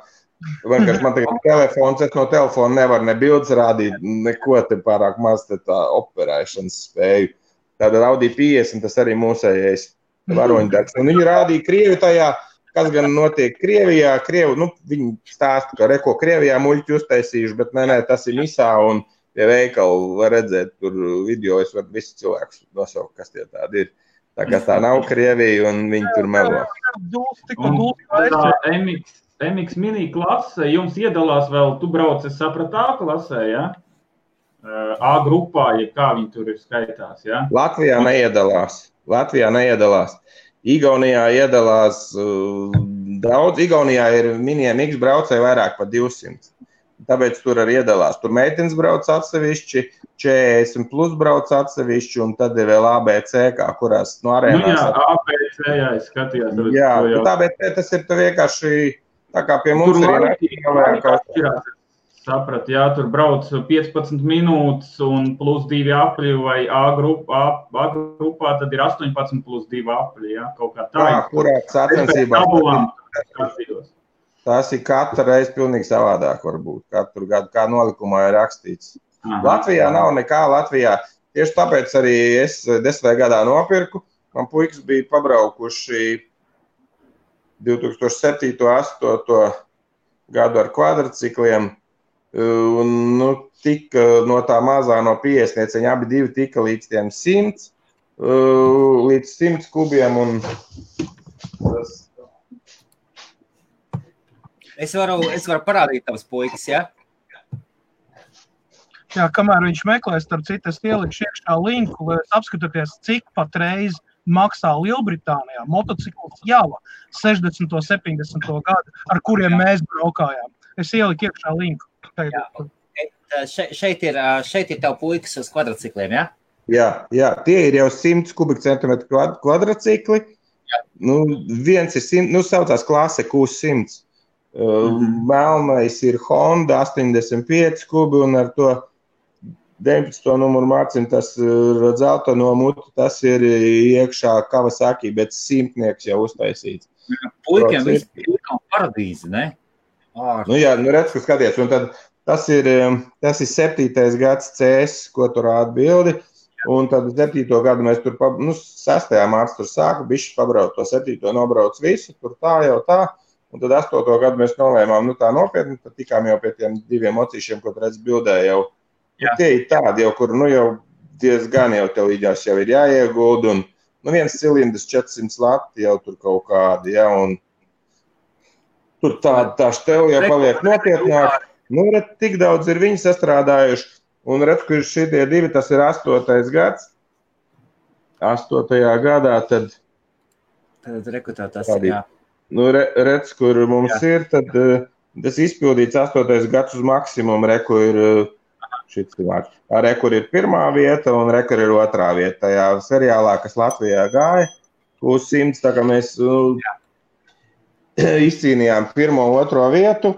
man tagad telefons, es no telefona nevaru ne bildes rādīt, neko te pārāk maz te tā operēšanas spēju. Tātad Audi 50, tas arī mūsējais varoņdarbs. Un viņi rādīja Krievi tajā, kas gan notiek Krievijā. Viņi stāsta, ka reko Krievijā muļķi uztaisījuši, bet nē, tas ir misā un pie veikalu var redzēt tur video, es varu visu cilvēkus nosaukt, kas tie tādi ir. Tā kā tā nav Krievija un viņi tur melo. MX mini klase, jums iedalās vēl, tu brauc, es sapratu, A klasē, ja? A grupā, ja kā viņi tur ir skaitās, ja? Latvijā neiedalās. Igaunijā iedalās daudz. Igaunijā ir miniem X braucēji vairāk par 200. Tāpēc tur arī iedalās. Tur meitenes brauc atsevišķi, 40 plus brauc atsevišķi, un tad ir vēl ABC, kā kurās no arēnās. ABC, es skatījos. ABC tas ir vienkārši tā kā pie mums ir saprat, tur brauc 15 minūtes un plus 2 apļi, vai A grupā tad ir 18 plus 2 apļi, kaut kā tā. Kurā sacensībā? Tas ir katru reizi pilnīgi savādāk varbūt. Katru gadu, kā nolikumā ir rakstīts. Latvijā nav nekā Latvijā. Tieši tāpēc arī es 10. gadā nopirku. Man puikas bija pabraukuši 2007. 2008. gadu ar kvadricikliem. Un, tika no tā mazā no 50, viņi abi divi tika līdz tiem 100, līdz 100 kubiem. Un tas... Es varu parādīt tavas puikas, ja? Jā, kamēr viņš meklēs, starp citu, es ielikšu iekšā linku, lai apskatāties, cik patreiz maksā Lielbritānijā motocikls Java 60. 70. gadu, ar kuriem mēs braukājām. Es ieliku iekšā linku. Šeit ir tev puikas uz kvadricikliem, ja? Jā, tie ir jau 100 kubikcentimetru kvadricikli. Viens ir 100, saucās klase Q100. Melnais ir Honda 85 kubi un ar to 19. numuru mācim, tas dzelta no mutu, tas ir iekšā Kawasaki, bet 100 jau uztaisīts. Puikiem viss ir kā paradīze, ne? Nu jā, redz, ka skaties, un tad tas ir 7. gads CS, ko tur rāda bildi, un tad 7. gadu mēs tur, 6. mārts tur sāka, bišķi pabrauc to 7. nobrauc visu, tur tā jau tā, un tad 8. gadu mēs nolēmām, tā nopietni, tad tikām jau pie tiem 2 mocīšiem, ko redz bildē jau. Tie ir tādi jau, kur, jau diezgan jau tev idās jau ir jāieguld, un, viens cilindrs 400 lati jau tur kaut kādi, ja, un tur tā štev jau paliek nopietnāk. Redz, tik daudz ir viņi sastrādājuši, un redz, ka šitie 2, tas ir 8. gads. 8. gadā tad rekutā tas ir, jā. Redz, kur mums ir, tad tas izpildīts 8. gads uz maksimumu, reku ir šits vārds. Rekur ir 1. vieta un rekur ir 2. vieta. Tajā seriālā, kas Latvijā gāja, uz 100, tā kā mēs izcīnījām 1. un 2. vietu.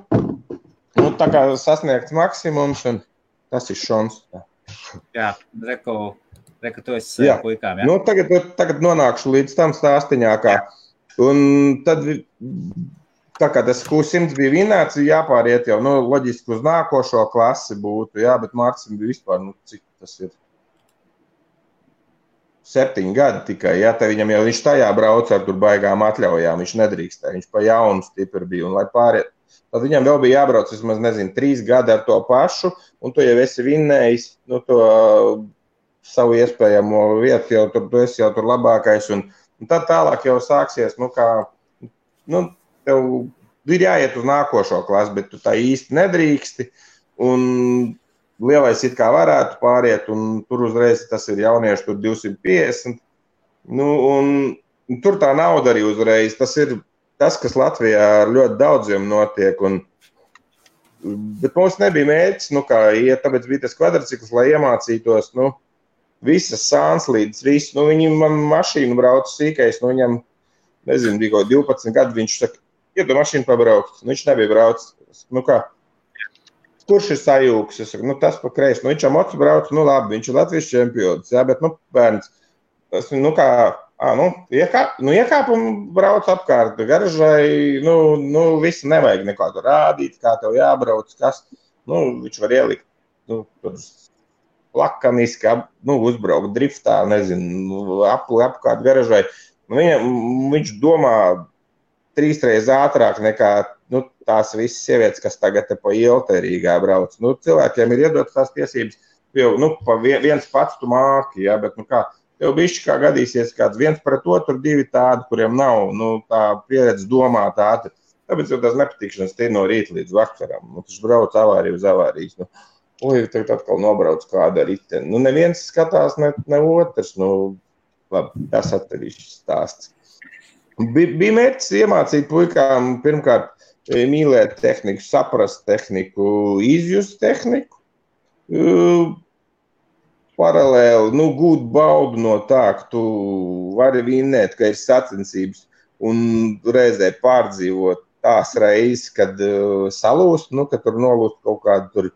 Tā kā sasniegts maksimums, un tas ir šons. Jā, reku tu esi puikām, jā? Tagad nonākšu līdz tam stāstiņākā. Un tad, tā kā tas Q100 bija vinēts, jāpāriet jau, loģiski uz nākošo klasi būtu, jā, bet Mārcim bija vispār, cik tas ir 7 gadi tikai, jā, te viņam jau viņš tajā brauc ar tur baigām atļaujām, viņš nedrīkstē, viņš pa jaunu stipri bija, un lai pāriet, tad viņam vēl bija jābrauc, vismaz, 3 gadi ar to pašu, un tu jau esi vinnējis, to savu iespējamo vietu, jau tur, tu esi jau tur labākais, un tad tālāk jau sāksies, tev ir jāiet uz nākošo klasu, bet tu tā īsti nedrīksti, un lielais it kā varētu pāriet, un tur uzreiz tas ir jaunieši, tur 250, un tur tā nauda arī uzreiz, tas ir tas, kas Latvijā ar ļoti daudziem notiek, bet mums nebija mērķis, tāpēc bija tas kvadricikls, lai iemācītos, visas sānslīdes, visu, viņi man mašīnu brauc sīkais, viņam, nezinu, bija kaut 12 gadu, viņš saka, iedu mašīnu pabraukt, viņš nebija brauc, kurš ir sajūgs, es saku, tas pa kreisi, viņš ar mocu brauc, labi, viņš ir Latvijas čempions, jā, bet, bērns, tas, iekāp un brauc apkārt garažai, visu nevajag neko tur rādīt, kā tev jābrauc, kas, viņš var ielikt, tur lakaniski, uzbraukt driftā, nezinu, apkārt garažai. Viņš domā 3 reizes ātrāk nekā, tās visas sievietes, kas tagad pa ielu te Rīgā brauc. Cilvēkiem ir iedotas tās tiesības, jau, pa viens pats tu māki, jā, bet, tev bišķi kā gadīsies kāds 1 pret otru, 2 tādi, kuriem nav, tā pieredze domāt ātri. Tāpēc jau tās nepatīkšanas tie no rīta līdz vakaram. Tas brauc avāriju uz avārijas. Tagad atkal nobrauc kāda riteni. Neviens skatās, ne otrs. Labi, tas atkarīšs stāsts. Bija mērķis iemācīt puikām pirmkārt mīlēt tehniku, saprast tehniku, izjust tehniku. Paralēli, gūt baudu no tā, ka tu vari vinnēt, ka ir sacensības un reizē pārdzīvot tās reizes, kad salūst, ka tur nolūst kaut kādu tur,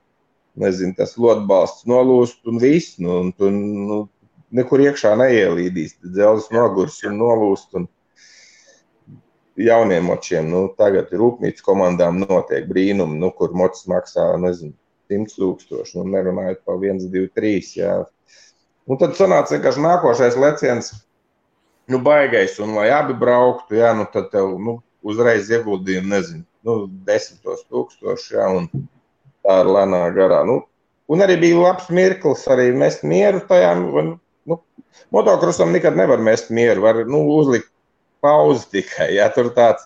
nezinu, tas lotbalsts nolūst un viss, un tu nekur iekšā neielīdīs, dzelzs nogurs un nolūst un jauniem močiem, tagad rūpnīcas komandām notiek brīnumi, kur mocis maksā, nezinu, 100,000, nerunājot pa 1, 2, 3, jā. Un tad sanāca vienkārši nākošais leciens, baigais, un lai abi brauktu, jā, tad tev, uzreiz ieguldījumi, nezinu, 10,000, jā, un tā ir lēnā garā. Un arī bija labs mirklis, arī mest mieru tajā, motokrosam nekad nevar mest mieru, var, uzlikt pauzi tikai, jā, tur tāds,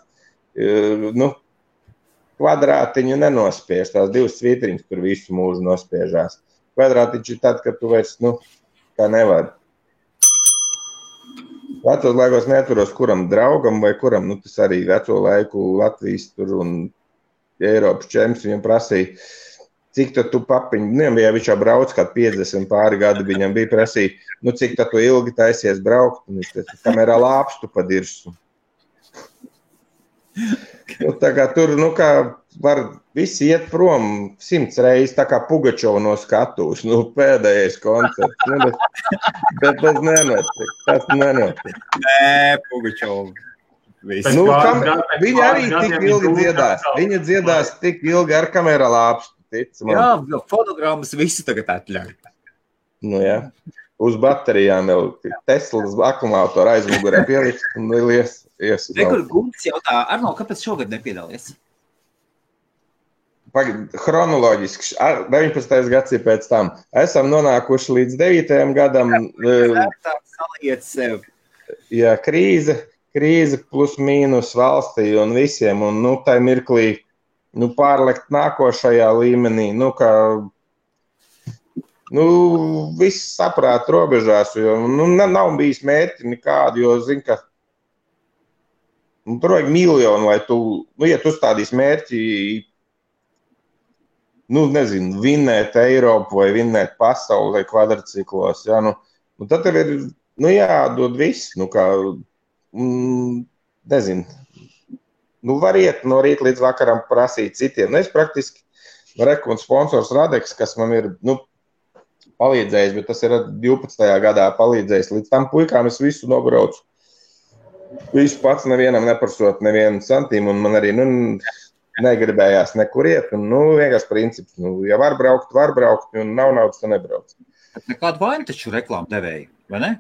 kvadrātiņu nenospiež, tās 2 svītriņas tur visu mūžu nospiežās. Kvadrātiņš ir tad, kad tu vairs, kā nevar. Vecos laikos neaturos kuram draugam vai kuram, tas arī veco laiku Latvijas tur un Eiropas čemps viņam prasīja, cik tad tu papiņu, ja viņš jau brauc kā 50 pāri gadi, viņam bija prasīja, cik tad tu ilgi taisies braukt, un viņš teica, kamerā lāpstu padirsu. Tā kā tur, kā var visi iet prom 100 reizes, tā kā Pugačova no skatuves, pēdējais koncerts, bet tas nenotiek, Nē, Pugačova. Viņa arī tik ilgi dziedās. Viņa dziedās tik ilgi ar kamera lāpstu, tic man. Jā, jo fonogrammas visi tagad atļauj. Nu jā, uz baterijām jau Teslas akumulātoru aizmugurē pielikt un ies. Rekur Gunts jautā, Arno, kāpēc šogad nepiedalies? Chronoloģiski, 19. gads ir pēc tam. Esam nonākuši līdz 9. gadam. Saliet sev. Jā, krīze plus mīnus valstī un visiem. Un, tai mirklī, pārlekt nākošajā līmenī. Viss saprāt robežās, jo, nav bijis mērķi nekādu, jo, zin, ka tur vajag miljonu, lai tu, ja tu stādīs mērķi, vinnēt Eiropu vai vinnēt pasauli vai kvadrciklos, jā, tad tev ir, jādod viss, var iet no rīta līdz vakaram prasīt citiem. Es praktiski, un sponsors Radeks, kas man ir, palīdzējis, bet tas ir 12. gadā palīdzējis. Līdz tam puikām es visu nobraucu. Visu pats nevienam neprasot nevienu santīmu, un man arī, negribējās nekur iet, un, vienkārši princips, ja var braukt, un nav naudas, tad nebrauc. Bet nekādu vainu taču reklāmu devēju, vai ne?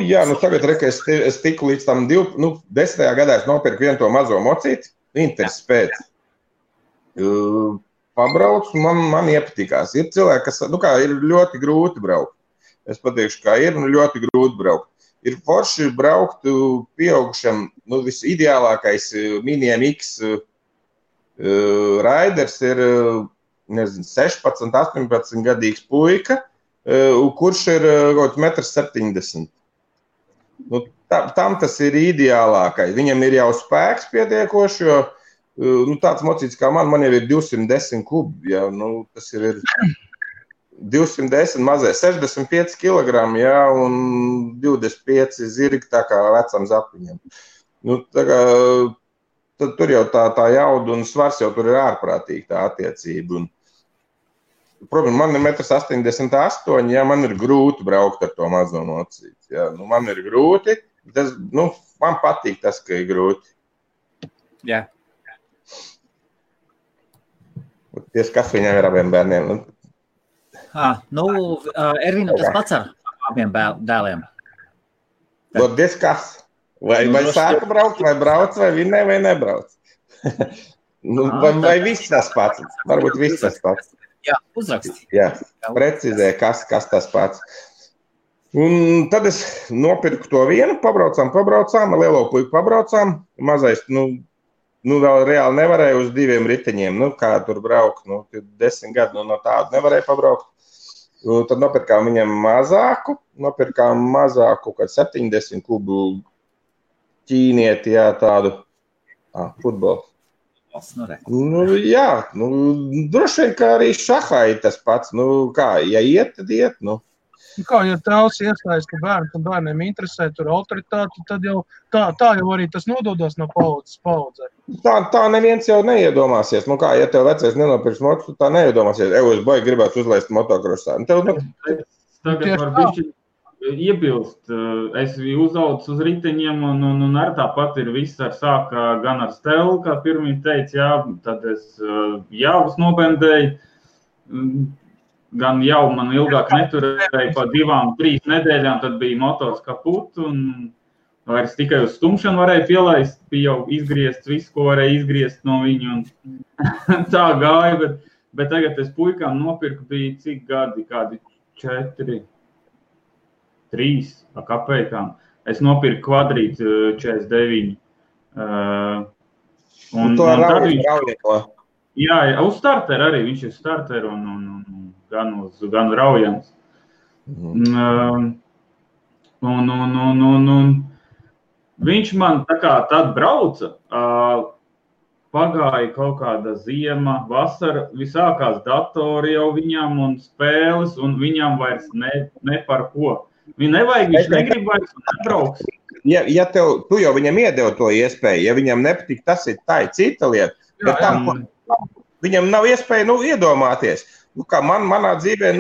Jā, tagad, es tiku līdz tam 10. gadā es nopirku vienu to mazo mocīti, Interes pēc. Pabraucu, man iepatikās. Ir cilvēki, kas, ir ļoti grūti braukt. Es pateikšu, kā ir, ļoti grūti braukt. Ir forši braukt pieaugušam, visideālākais Mini MX raiders ir, 16, 18 gadīgs puika, kurš ir 1,70 m. Tam tas ir ideālākais. Viņam ir jau spēks pietiekoši, jo tāds mocīts kā man jau ir 210 kubi, jā, tas ir 210 mazais, 65 kg, jā, un 25 zirgi tā kā vecam zapiņam. Tad tur jau tā jauda un svars jau tur ir ārprātīgi tā attiecība. Un, protams, man ir 1,88 m, jā, man ir grūti braukt ar to mazo mocīti, jā, man ir grūti, tas, man patīk tas, ka ir grūti. Jā. Kas viņam ir abiem bērniem? Ervīnam tas pats ar abiem dēliem. Kas? Vai sāka braukt, vai brauc, vai vinnē, vai nebrauc? Vai viss tas pats? Varbūt viss tas pats. Jā, uzraksti. Jā, precizē, kas tas pats. Un tad es nopirku to vienu, pabraucām, lielo puiku pabraucām, mazais, vēl reāli nevarēja uz 2 riteņiem, kā tur braukt, 10 gadu, no tādu nevarēja pabraukt. Tad nopirkām viņam mazāku, kad 70 kubu ķīnieti, jā, tādu futbolu. Jā, droši vien, kā arī šahā ir tas pats, ja iet, tad iet, Kā, ja tēvs iestājas, ka bērniem interesē tur autoritāti, tad jau tā jau arī tas nododas no paudzes paudzē. Tā neviens jau neiedomāsies. Ja tev vecais nenopirks mocu, tā neiedomāsies. Es baigi gribētu uzlaist motokrosā. Tagad var bišķi iebilst. Es uzaucu uz riteņiem un ar tāpat ir viss sāka gan ar stelu, kā pirmie teica, jā, tad es jāvus nopendēju. Gan jau man ilgāk neturēja pa 2-3 nedēļām, tad bija motors kaput un vairs tikai uz stumšanu varēja pielaist, bija jau izgriezt visu, ko varēja izgriezt no viņu un tā gāja, bet tagad es puikām nopirku bija cik gadi, kādi 4, 3 kapekām. Es nopirku kvadrītu 49. Un to raujieto? Jā, uz starteru arī, viņš ir starteru un gan raujams. Viņš man tā kā tad brauca, pagāja kaut kāda ziema, vasara, visākās datori jau viņam un spēles, un viņam vairs ne par ko. Viņa nevajag, viņš negrib vairs un nebrauks. Ja tu jau viņam iedevi to iespēju, ja viņam nepatīk, tas ir tā cita lieta, bet viņam nav iespēja iedomāties. Kā manā dzīvē,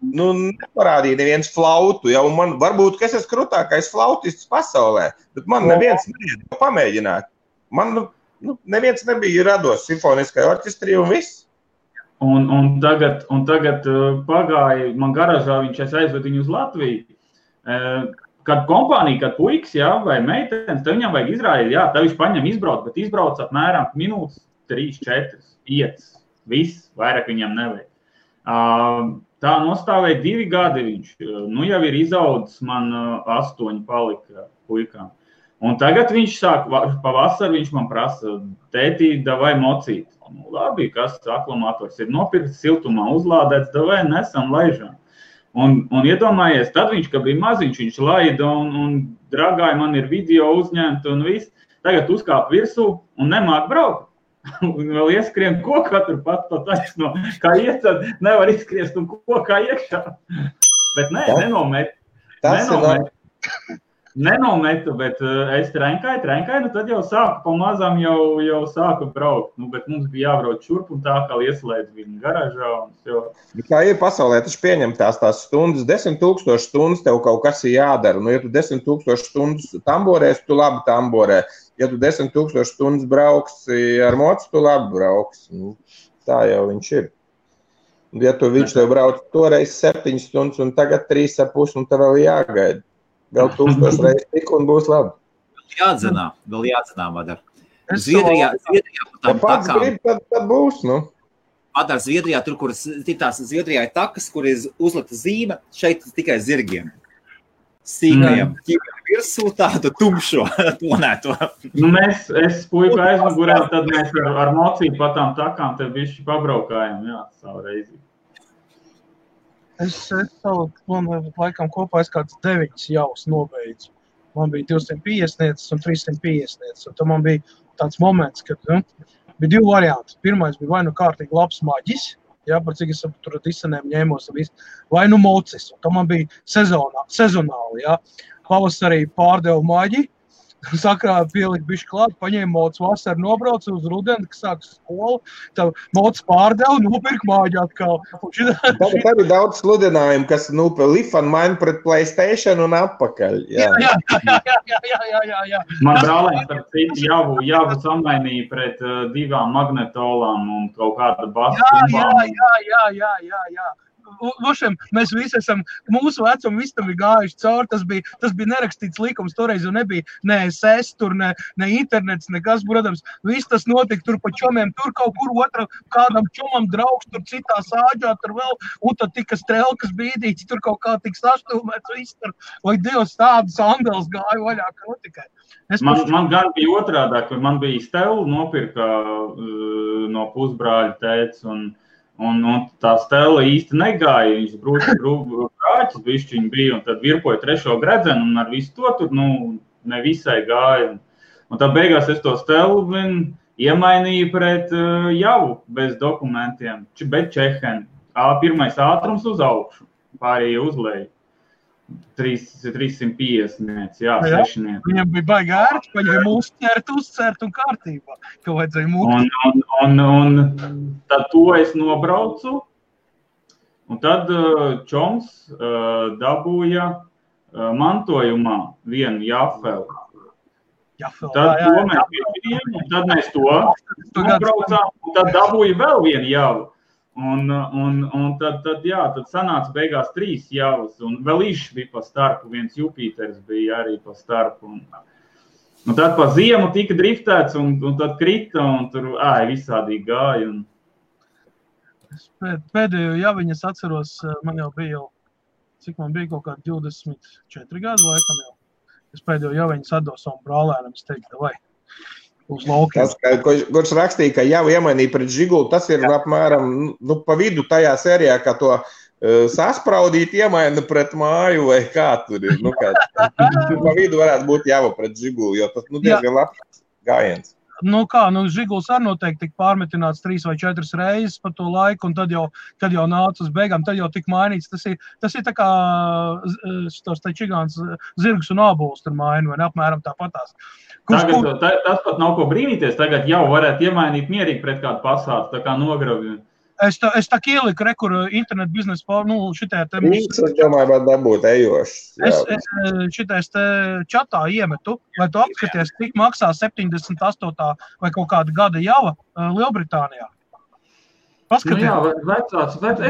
neparādīja neviens flautu. Ja, man varbūt, ka es esmu krūtākais flautists pasaulē, bet man neviens neiedod pamēģināt. Man neviens nebija rados simfoniskajā orķestrī un viss. Un tagad pagāja, man garažā es aizvedu viņu uz Latviju. Kad kompānija, kad puiks, vai meitenes, tad viņam vajag izrādīt, tad viņš paņem izbrauc, bet izbrauc apmēram minūtes 3, 4, 5, viss, vairāk viņam nevajag. Tā nostāvēja 2 gadi viņš, jau ir izaudzis, man 8 palika puikām. Un tagad viņš sāk, pavasar viņš man prasa, tētī, davai mocīt. Labi, kas aklamators ir nopirkts, siltumā uzlādēts, davai nesam laižām. Un iedomājies, tad viņš, kad bija maziņš, viņš laida un dragāja, man ir video uzņemt un viss. Tagad uzkāp virsū un nemāk braukt. Un vēl ieskrien kokā turpat pa taisno. Kā iet, tad nevar izskriest un kokā iekšā. Bet nenometu, bet es trenkāju, tad jau sāku pamazām jau sāku braukt. Bet mums bija jābrauc šurp un tā, kā ieslēdz viņa garažā. Kā ir pasaulē, taču pieņem tās stundas, 10 000 stundas tev kaut kas ir jādara. Ja tu 10 000 stundas tamborēs, tu labi tamborē. Ja tu 10 000 stundas brauksi ar mocu, tu labi brauksi. Tā jau viņš ir. Ja viņš tev brauc toreiz 7 stundas un tagad 3,5 un tev vēl jāgaida. Vēl 1000 reizes tik un būs labi. Vēl jāatzinā, Madar. Zviedrijā pats grib, tad būs, Madar, Zviedrijā, tur, kur Zviedrijā ir takas, kur ir uzlikta zīme, šeit tikai zirgiem. Sīkajam ķīmiem virsū tādu tumšo tonēto. Es puiku aizmugurē, tad mēs ar mocību pa tām takām te bišķi pabraukājam, savu reizi. Es laikam kopā kāds 9 jaus nobeidzu. Man bija 250 un 350. Un tad man bija tāds moments, kad bija 2 varianti. Pirmais bija vai kārtīgi labs maģis, par cik es tur disanēm ņēmos un viss, vai mocis. Un tad man bija sezonāli, Pavasarī pārdevu maģi, sakrā pielikt bišķi klāt, paņēma mocis, vasar nobrauc uz rudeni, kas sāks skolu, tad mocis pārdevu, nopirk maģi atkal. Tad ir daudz sludinājumu, kas lifan maina pret PlayStation un atpakaļ. Jā. Man brālēns ar citu javu samainīja pret 2 magnetolām un kaut kāda basa. Jā. Mēs visi esam, mūsu vecumu visi tam ir gājuši cauri, tas bija nerakstīts likums, toreiz jau nebija ne SS, tur ne internets, nekas, protams, viss tas notika tur pa čomiem, tur kaut kur kādam čomam draugs, tur citā sāģā, tur vēl, un tad tika strelkas bīdīts, tur kaut kā tik saštūmēts, viss tur, vai Dievs tādas andels gāja vaļā, kā tikai. Man gan bija otrādāk, man bija stelu nopirka no pusbrāļa tēts, un tā stela īsti negāja, viņš brūķis bišķiņ bija, un tad virpoja 3. gredzenu, un ar visu to tur, nevisai gāja. Un tad beigās es to stelu iemainīju pret javu bez dokumentiem, bet čeheni. Pirmais ātrums uz augšu, pārējie uzleju. 350, 6. Viņam bija baigi ērti, paņēma uzcert un kārtībā, ka vajadzēja mūtu. Un tad to es nobraucu, un tad čoms dabūja mantojumā vienu jafeli. Tad mēs to nobraucām, un tad dabūja vēl vienu javu. Un tad sanāca beigās 3 javas, un vēl īšs bija pa starpu, viens Jupiters bija arī pa starpu. Un tad pa ziemu tika driftēts, un tad krita, un tur visādīgi gāja. Pēdējo javiņu es atceros, man jau bija cik man bija kaut kādi 24 gadu laikam jau. Es pēdējo javiņu atdevu savam brālēnam, es teiktu, vai. Tas, kurš rakstīja, ka jau iemainīja pret Žiguli, tas ir apmēram pa vidu tajā sērijā, kā to saspraudīt iemaina pret māju vai kā tur ir. Pa vidu varētu būt jau pret Žiguli, jo tas diezgan labs gājiens. Žiguls arī noteikti tika pārmetināts 3 vai 4 reizes par to laiku, un tad jau nāca uz beigām, tad jau tika mainīts. Tas ir tā kā šitos čigāns zirgs un ābols tur maina, vai apmēram tāpatās. Tas pat nav ko brīnīties, tagad jau varētu iemainīt mierīgi pret kādu pasātu, tā kā nogravju. Es tā ieliku, kur internetu biznesa, šitā te... Es domāju, vai dabūt ejošs. Es šitais te čatā iemetu, lai tu apskaties, cik maksā 78. vai kaut kāda gada java Lielbritānijā. Paskaties. Jā, vecāts. Tagad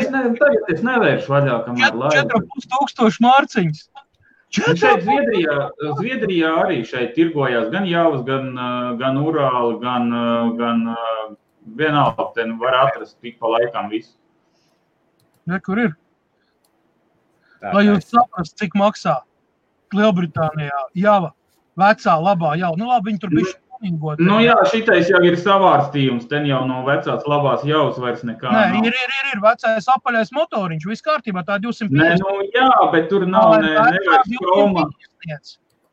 es nevēršu vaļā, kamēr laivu. 4500 mārciņas. Šeit Zviedrijā arī šeit tirgojās gan javas, gan Urāli, gan vienalga, te var atrast tik pa laikam visu. Ja, kur ir? Lai jūs saprast, cik maksā Lielbritānijā java, vecā, labā java. Nu labi, viņi tur bišķi tuningot. Nu jā, šitais jau ir savārstījums, ten jau no vecās labās javas vairs nekā nav. Nē, ir vecais apaļais motoriņš, viss kārtībā, tā 250. Nē, nu jā, bet tur nav nevairs kroma.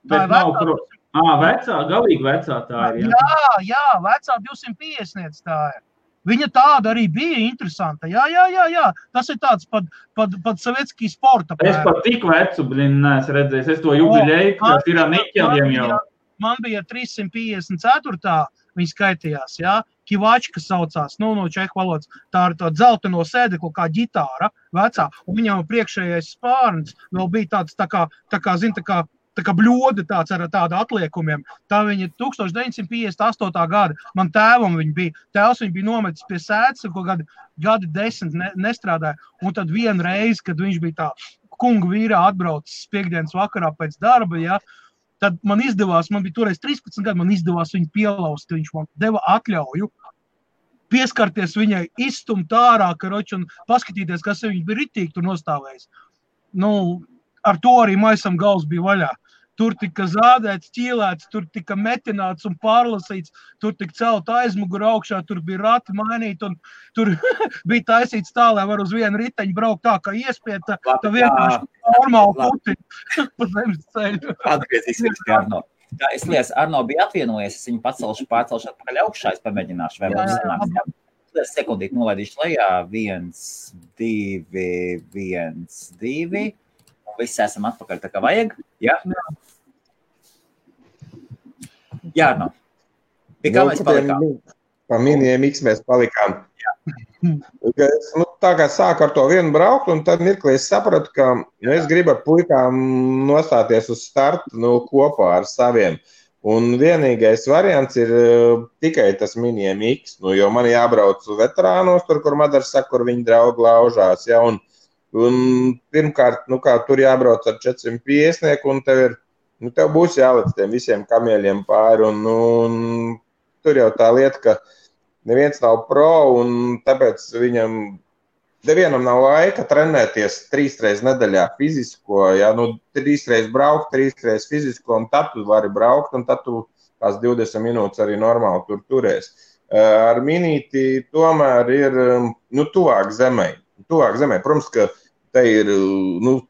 Bet nav kroma. Vecā, galīgi vecā tā ir, jā. Jā, vecā 250 tā ir. Viņa tāda arī bija interesanta. Jā. Tas ir tāds pat sovietskī sporta. Es pat tik vecu, neesmu redzējis. Es to jubiļēju, kas ir Niķeļiem jau. Man bija 354. Viņa skaitījās, jā. Kivačka saucās, no čehu valodas. Tā ir tā dzelteno sēdeklu kā ģitāra vecā. Un viņam priekšējais spārns vēl bija tāds tā kā bļoda tāds ar tādu atliekumiem. Tā viņa 1958. gada. Man tēvam viņa bija. Tēvs viņa bija nometis pie sēdes, ko gadi 10 nestrādāja. Un tad vienu reizi, kad viņš bija tā kunga vīrā atbraucis piekdienas vakarā pēc darba, ja, tad man bija toreiz 13 gadi, man izdevās viņu pielaust. Viņš man deva atļauju pieskarties viņai, izstumt ārā, karoči, un paskatīties, kas viņa bija ritīgi tur nostāvējis. Ar to arī maisam gals bija vaļā. Tur tika zādēts, ķīlēts, tur tika metināts un pārlasīts, tur tika celt aizmuguru augšā, tur bija rati mainīt, un tur bija taisīts tā, lai var uz vienu riteņu braukt tā, kā iespiet, tā vienkārši normāli puti pa zemes ceļu. Atgriezīsimies pie Arno. Es liekas, Arno bija atvienojies, es viņu pārcelšu atpakaļ augšā, es pamēģināšu, vai mums sanāks. Sekundīt nolaidīšu lejā, 1, 2, 1, 2. Visi esam atpakaļ tā kā vajag, jā? Jā, no. Pie kā mēs palikām? Pa miniem X mēs palikām. Tā kā sāku ar to vienu braukt, un tad mirklī es sapratu, ka es gribu ar puikām nostāties uz startu kopā ar saviem. Un vienīgais variants ir tikai tas miniem X, jo man jābrauc veterānos, tur, kur Madars saka, kur viņi draugi laužās, ja, un pirmkārt, kā tur jābrauc ar 450, un tev būs jālec tiem visiem kamieļiem pāri, un tur jau tā lieta, ka neviens nav pro, un tāpēc nevienam nav laika trenēties 3 reizes nedēļā fizisko, ja, 3 reizes braukt, 3 reizes fizisko, un tad tu vari braukt, un tad tu tās 20 minūtes arī normāli tur turēs. Ar minīti tomēr ir, tuvāk zemē. Protams, ka te ir,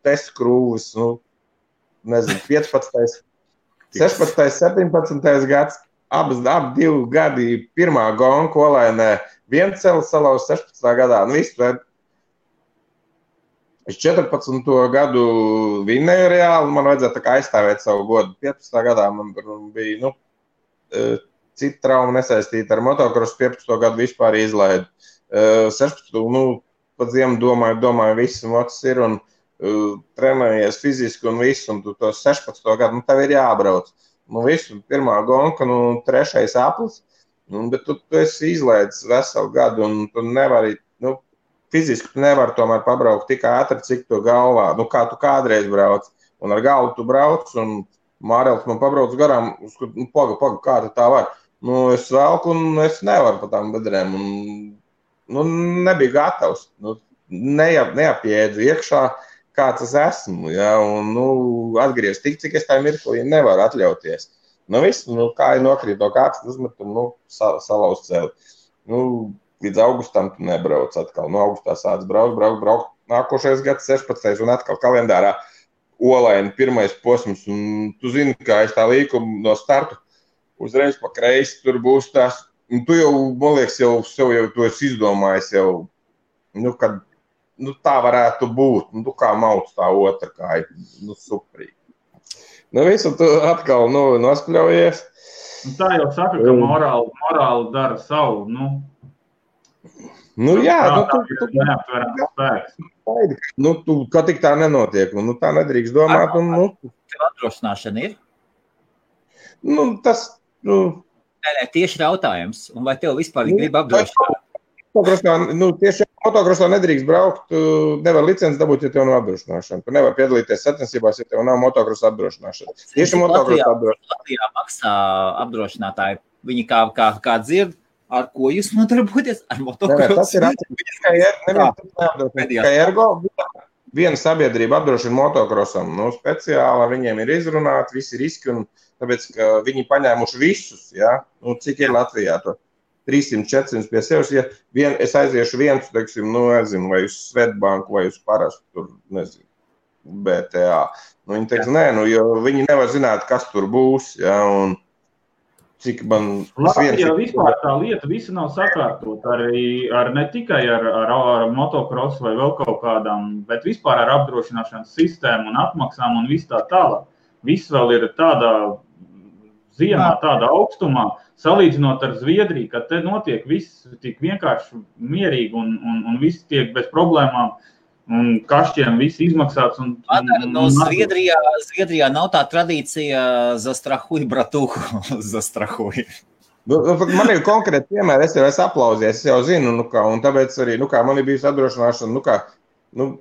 test krūvis, 15, 16, 17 gads, abi 2 gadi, pirmā gonga Olainē, viens celis salauz 16. gadā, visu. Es 14. gadu vinnēju reāli, man vajadzēja tā kā aizstāvēt savu godu. 15. gadā man bija, cita trauma nesaistīta ar motokrosu, 15. gadu vispār izlaidu. 16. Pat ziemu domāju, viss mocs ir un trenējies fiziski un viss, un tu to 16. gadu, tev ir jābrauc. Visu, pirmā gonka, 3. aplis, bet tu esi izlaidis veselu gadu, un tu nevari, fiziski tu nevari tomēr pabraukt tik ātri, cik tu galvā, kā tu kādreiz brauc, un ar galvu tu brauc, un Mārēls man pabrauc garām, paga, kā tu tā var. Es velku, un es nevaru pa tām bedrēm, un nebija gatavs, neapjēdzu iekšā, kāds es esmu, ja, un, atgriezt tik, cik es tā mirklī nevaru atļauties. Viss, kāja nokrīt no kāds, uzmet, un, salauz celi. Līdz augustam tu nebrauc atkal, augustā sāc braukt, nākošais gads 16. un atkal kalendārā Olaina pirmais posms, un tu zini, kā es tā līku no startu, uzreiz pa kreisi tur būs tās, un tu jau, man liekas, sev tu esi izdomājis jau, kad, tā varētu būt, kā mauc tā otra kāja, superīgi. Visu tu atkal, nospļaujies. Tā jau saka, ka morāli dara savu, Nu, jā, tu neaptverams spēks. Tu, ka tik tā nenotiek, un tā nedrīkst domāt, un, Tev apdrošināšana ir? Tas, Nē, tieši jautājums, un vai tev vispār grib apdrošināt? Tieši motokrosā nedrīkst braukt, nevar licenci dabūt, ja tev nav apdrošināšana. Tu nevar piedalīties sacensībās, ja tev nav motokrosa apdrošināšana. Tieši motokrosa apdrošināšana. Latvijā maksā apdrošinātāji, viņi kā dzird, ar ko jūs nodarboties? Ar motokrosu? Tas ir atcīm, ka ergo viena sabiedrība apdrošina motokrosam. Speciāli viņiem ir izrunāti visi riski, un tāpēc, ka viņi paņēmuši visus, ja? Cik ir Latvijā to? 300, 400 pie sevis, ja es aiziešu viens, teiksim, nezinu, vai uz Svetbanku, vai uz parastu, tur, nezinu, BTA. Viņi teiks, nē, jo viņi nevar zināt, kas tur būs, ja, un cik man... Latvijā vispār tā lieta visa nav sakārtot, ne tikai ar motokrosu vai vēl kaut kādām, bet vispār ar apdrošināšanas sistēmu un atmaksām un viss tā tālāk. Viss vēl ir tādā ziemā, tādā augstumā, salīdzinot ar Zviedriju, kad te notiek viss tik vienkārši mierīgi un viss tiek bez problēmām un kašķiem viss izmaksāts. Zviedrijā nav tā tradīcija zastrahuj, bratuhu, zastrahuj. Man ir konkrēti piemēri, es aplauzies, es jau zinu, un tāpēc arī, man ir bijusi apdrošināšana,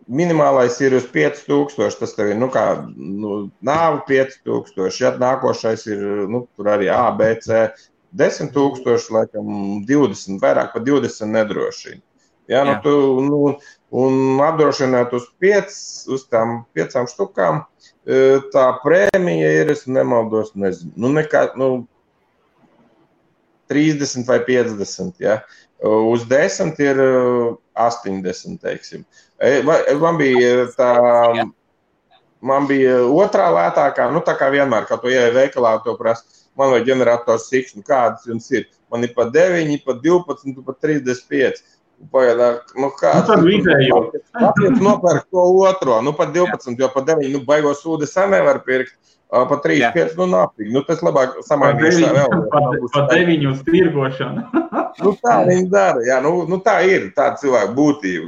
minimālais ir uz 5000, tas tev ir, nāvu 5000, ja nākošais ir, tur arī A, B, C, 10 000, laikam 20, vairāk par 20 nedrošina. Ja, un apdrošināt uz tām 5 štukām, tā prēmija ir, es nemaldos, nezinu, 30 vai 50, ja. Uz 10 ir 80, teiksim. Man bija otrā lētākā, tā kā vienmēr, kā to ieeja veikalā, to prasa, man vai ģenerators X, kādas jums ir? Man ir pa 9, pa 12, pa 35. Kāds? Tad vidējo. Kāpēc nopērk to otro? Pa 12, jo pa 9, baigos sūdi sen nevar pirkt. Pa 3-5, nāpīgi. Tas labāk samainīšu vēl. Pa 9 uz tirgošanu. Tā viņi dara, jā. Tā ir tāda cilvēka būtība.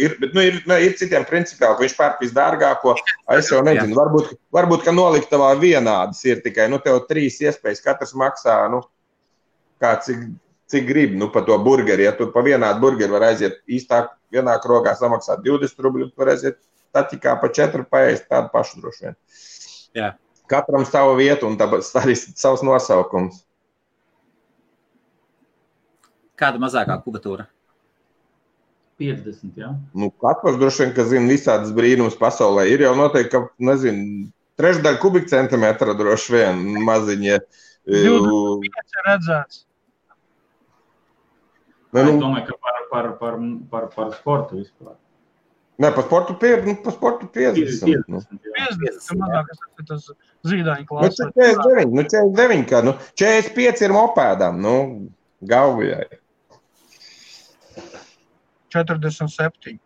Ir citiem principiāli, ka viņš pērk visdārgāko. Es jau nezinu, varbūt, ka noliktavā vienādas ir tikai, tev 3 iespējas, katrs maksā, kā cik grib, pa to burgeri. Ja tu pa vienādu burgeri var aiziet īstāk vienā krogā samaksāt 20 rubļu, tu var aiziet taķikā pa 4 paēst tādu pašu droši vien. Jā. Katram savu vietu un tāpēc arī savs nosaukums. Kāda mazākā kubatūra? 50, jā. Katrs droši vien, ka zina visādas brīnums pasaulē. Ir jau noteikti, ka, nezinu, 1/3 kubikcentimetra droši vien maziņie. 25 redzēts. Es domāju, ka par sportu vispār. Nē, pa sportu 50. 50, mazāk, tas zīdaiņu klāsts. 49, kā, 45 ir mopēdām, Gauvijai. 47.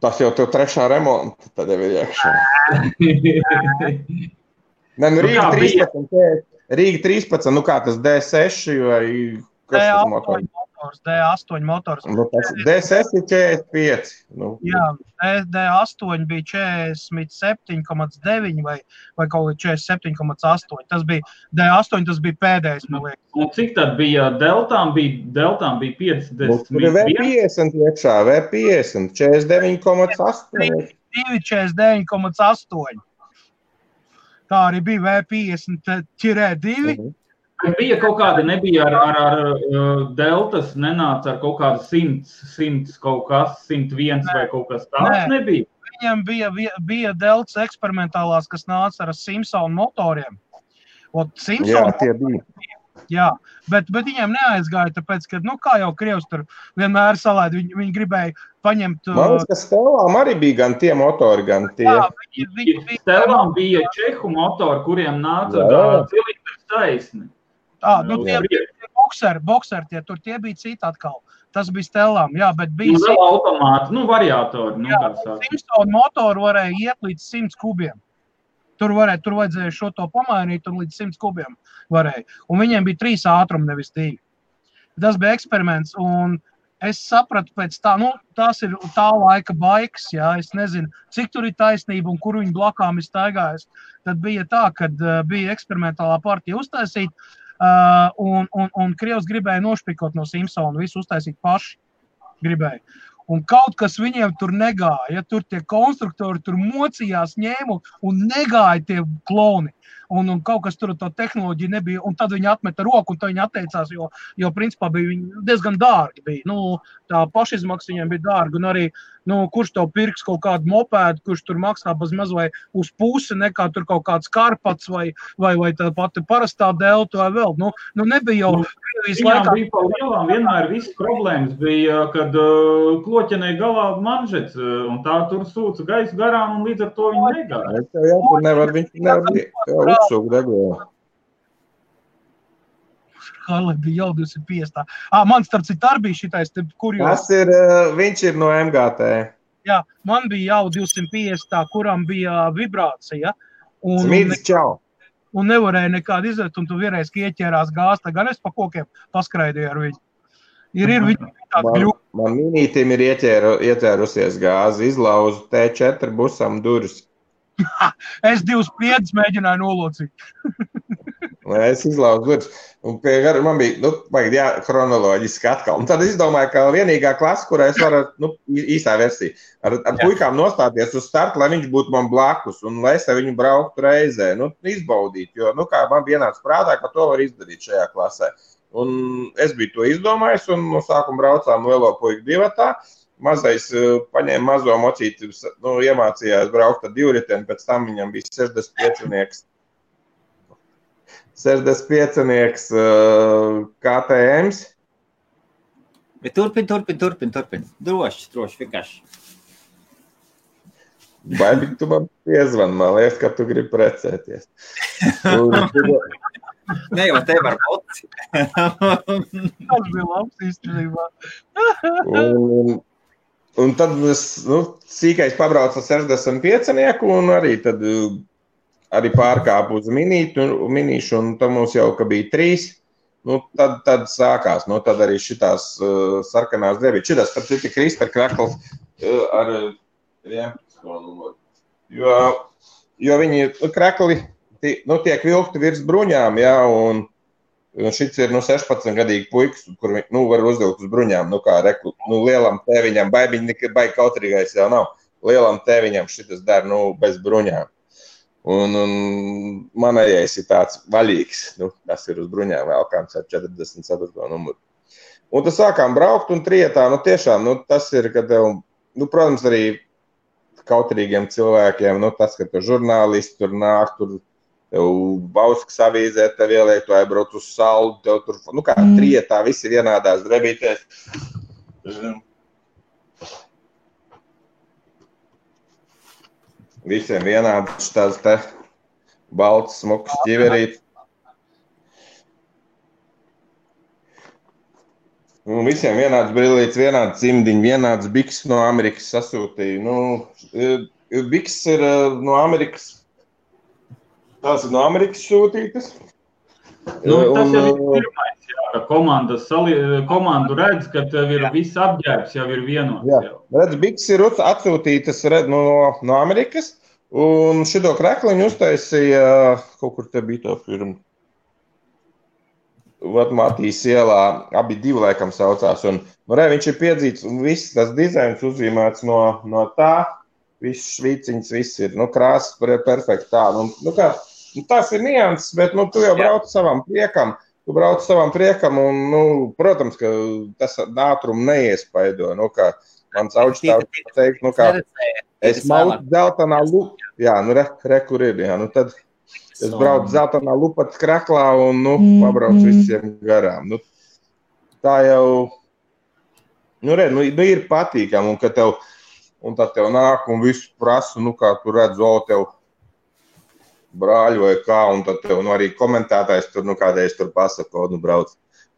Tas jau tev 3. remonta, tad jau ir iekšā. Rīga 13, kā tas D6 vai kas tas motors? D8 motors. D6 ir 45. Jā, D8 bija 47,9 vai kaut kā 47,8. Tas bija D8, tas bija pēdējais, man liekas. Un cik tad bija deltām? Deltām bija 50. Tur ir V50 iekšā, V50, 49,8. 49,8. Tā arī bija V50 ķirē 2. Bija kaut kāda, nebija ar deltas, nenāca ar kaut kādu 100 kaut kas, 101 vai kaut kas tāds nebija? Viņam bija deltas eksperimentālās, kas nāca ar Simpson motoriem. Jā, tie bija. Jā, bet viņiem neaizgāja, tāpēc, ka, kā jau Krievs tur vienmēr salēd, viņi gribēja paņemt... Man liekas, ka Stellām arī bija gan tie motori, gan tie. Jā, Stellām bija čehu motori, kuriem nāca cilindrs taisni. Bokseri, tie bija citi atkal. Tas bija Stellām, jā, bet bija... Vēl automāti, variatori. Simpson motoru varēja iet līdz 100 kubiem. Tur vajadzēja šo to pamainīt un līdz 100 kubiem varēja. Un viņiem bija 3 ātrumi, nevis 2. tas bija eksperiments, un es sapratu pēc tā, tās ir tā laika baikas, jā, es nezinu, cik tur ir taisnība un kur viņi blakām ir staigājis. Tad bija tā, kad bija eksperimentālā partija uztaisīt, un Krievs gribēja nošpikot no Simpsona, visu uztaisīt paši gribēja. Un kaut kas viņiem tur negāja, tur tie konstruktori tur mocījās, ņēmu un negāja tie kloni. Un kaut kas tur tā tehnoloģija nebija, un tad viņi atmeta roku, un tad viņi atteicās, jo principā bija viņi diezgan dārgi bija. Tā pašizmaksa viņiem bija dārga, un arī, kurš tev pirks kaut kādu mopēdu, kurš tur maksā bezmaz vai uz pusi, nekā tur kaut kāds karpats vai tā pati parastā delta vai vēl. Nebija jau Krievijas laikā. Bija pa lielām, vienmēr visas problēmas bija, kad kloķenei galā manžets, un tā tur sūca gaisu garām, un līdz ar to viņi negāja. Tur nevar uzsūkt degvielu. Harley bija jau 250. Man starp citu arī bija šitais, kur jau... Viņš ir no MGT. Jā, man bija jau 250, kuram bija vibrācija. Smīdz čau. Un nevarēja nekādu izvēt, un tu vienreiz ieķērās gāzta, gan es pa kokiem paskraidīju ar viņu. Ir viņi tādi gļuki. Man minītim ir ieķērusies gāzi, izlauzu T4 busam durvis. Es 2 spriedus mēģināju nolocīt. Es izlauzu durvis. Un man bija, chronoloģiski atkal. Un tad es izdomāju, ka vienīgā klasa, kurā es varu, īsā versija, ar puikām nostāties uz startu, lai viņš būtu man blakus un lai es ar viņu brauktu reizē, izbaudīt. Jo, kā man vienāds prātā, ka to var izdarīt šajā klasē. Un es biju to izdomājis un no sākuma braucām lielo puiku divatā. Mazais paņēma mazo mocīti, iemācījās braukt ar divriteni, pēc tam viņam bija 65 KTMs. Bet turpin. Droši, vienkārši. Baigi, tu man piezvani, man liekas, ka tu gribi precēties. Ne jau te var būt. Tas bija labs īstenībā. Un tad es, sīkais pabraucu ar 65 un arī pārkāpu uz minīšu, un tad mums jau, ka bija 3, tad sākās, tad arī šitās sarkanās drēbītes. Šitās, tad ir Krister krakls ar 11 numuru. Jo viņi krakli tiek vilkti virs bruņām, jā, un šits ir 16-gadīgi puikas, kur var uzvilkt uz bruņām, kā lielam tēviņam, baigi kautrīgais jau nav, lielam tēviņam šitas dara, bez bruņām. Un manējais ir tāds vaļīgs, tas ir uz bruņām vēlkāms ar 44 numuru. Un tad sākām braukt un trietā, tiešām, tas ir, kad tev, protams, arī kautrīgiem cilvēkiem, tas, ka tu žurnālisti tur nāk, tur tev Bauskas avīzē, tev ieliek, tu aizbrauc uz salu, tev tur, kā trietā, visi vienādās drebītēs. Visiem vienāds tās te balts, smuks ķiverīt. Un visiem vienāds brillīts, vienāds cimdiņi, vienāds biks no Amerikas sasūtīja. Biks ir no Amerikas. Tās ir no Amerikas sūtītas. Tas jau ir pirmais, ka komandu redz, ka tev ir viss apģērbs, jau ir vienots. Jā, redz, biks ir atsūtītas no Amerikas, un šito krekliņu uztaisīja, kaut kur te bija to firmu. Matīs ielā, abi 2 laikam saucās, un viņš ir piedzīts, un viss tas dizains uzzīmēts no tā, viss švīciņas, viss ir, krāsas perfekti tā, tās ir nianses, bet, tu jau brauc savam priekam, un, protams, ka tas ātrumu neiespaido, kā mans augstāvs teikt, kā es mautu zeltanā lupa, jā, kur ir, jā, tad es braucu zeltanā lupatas kraklā un, pabraucu visiem garām. Tā jau, ir patīkam, un tad tev nāk un visu prasu, kā tu redz, tev brāļu vai kā, un tad tev arī komentētājs tur, kādreiz tur pasaka, brauc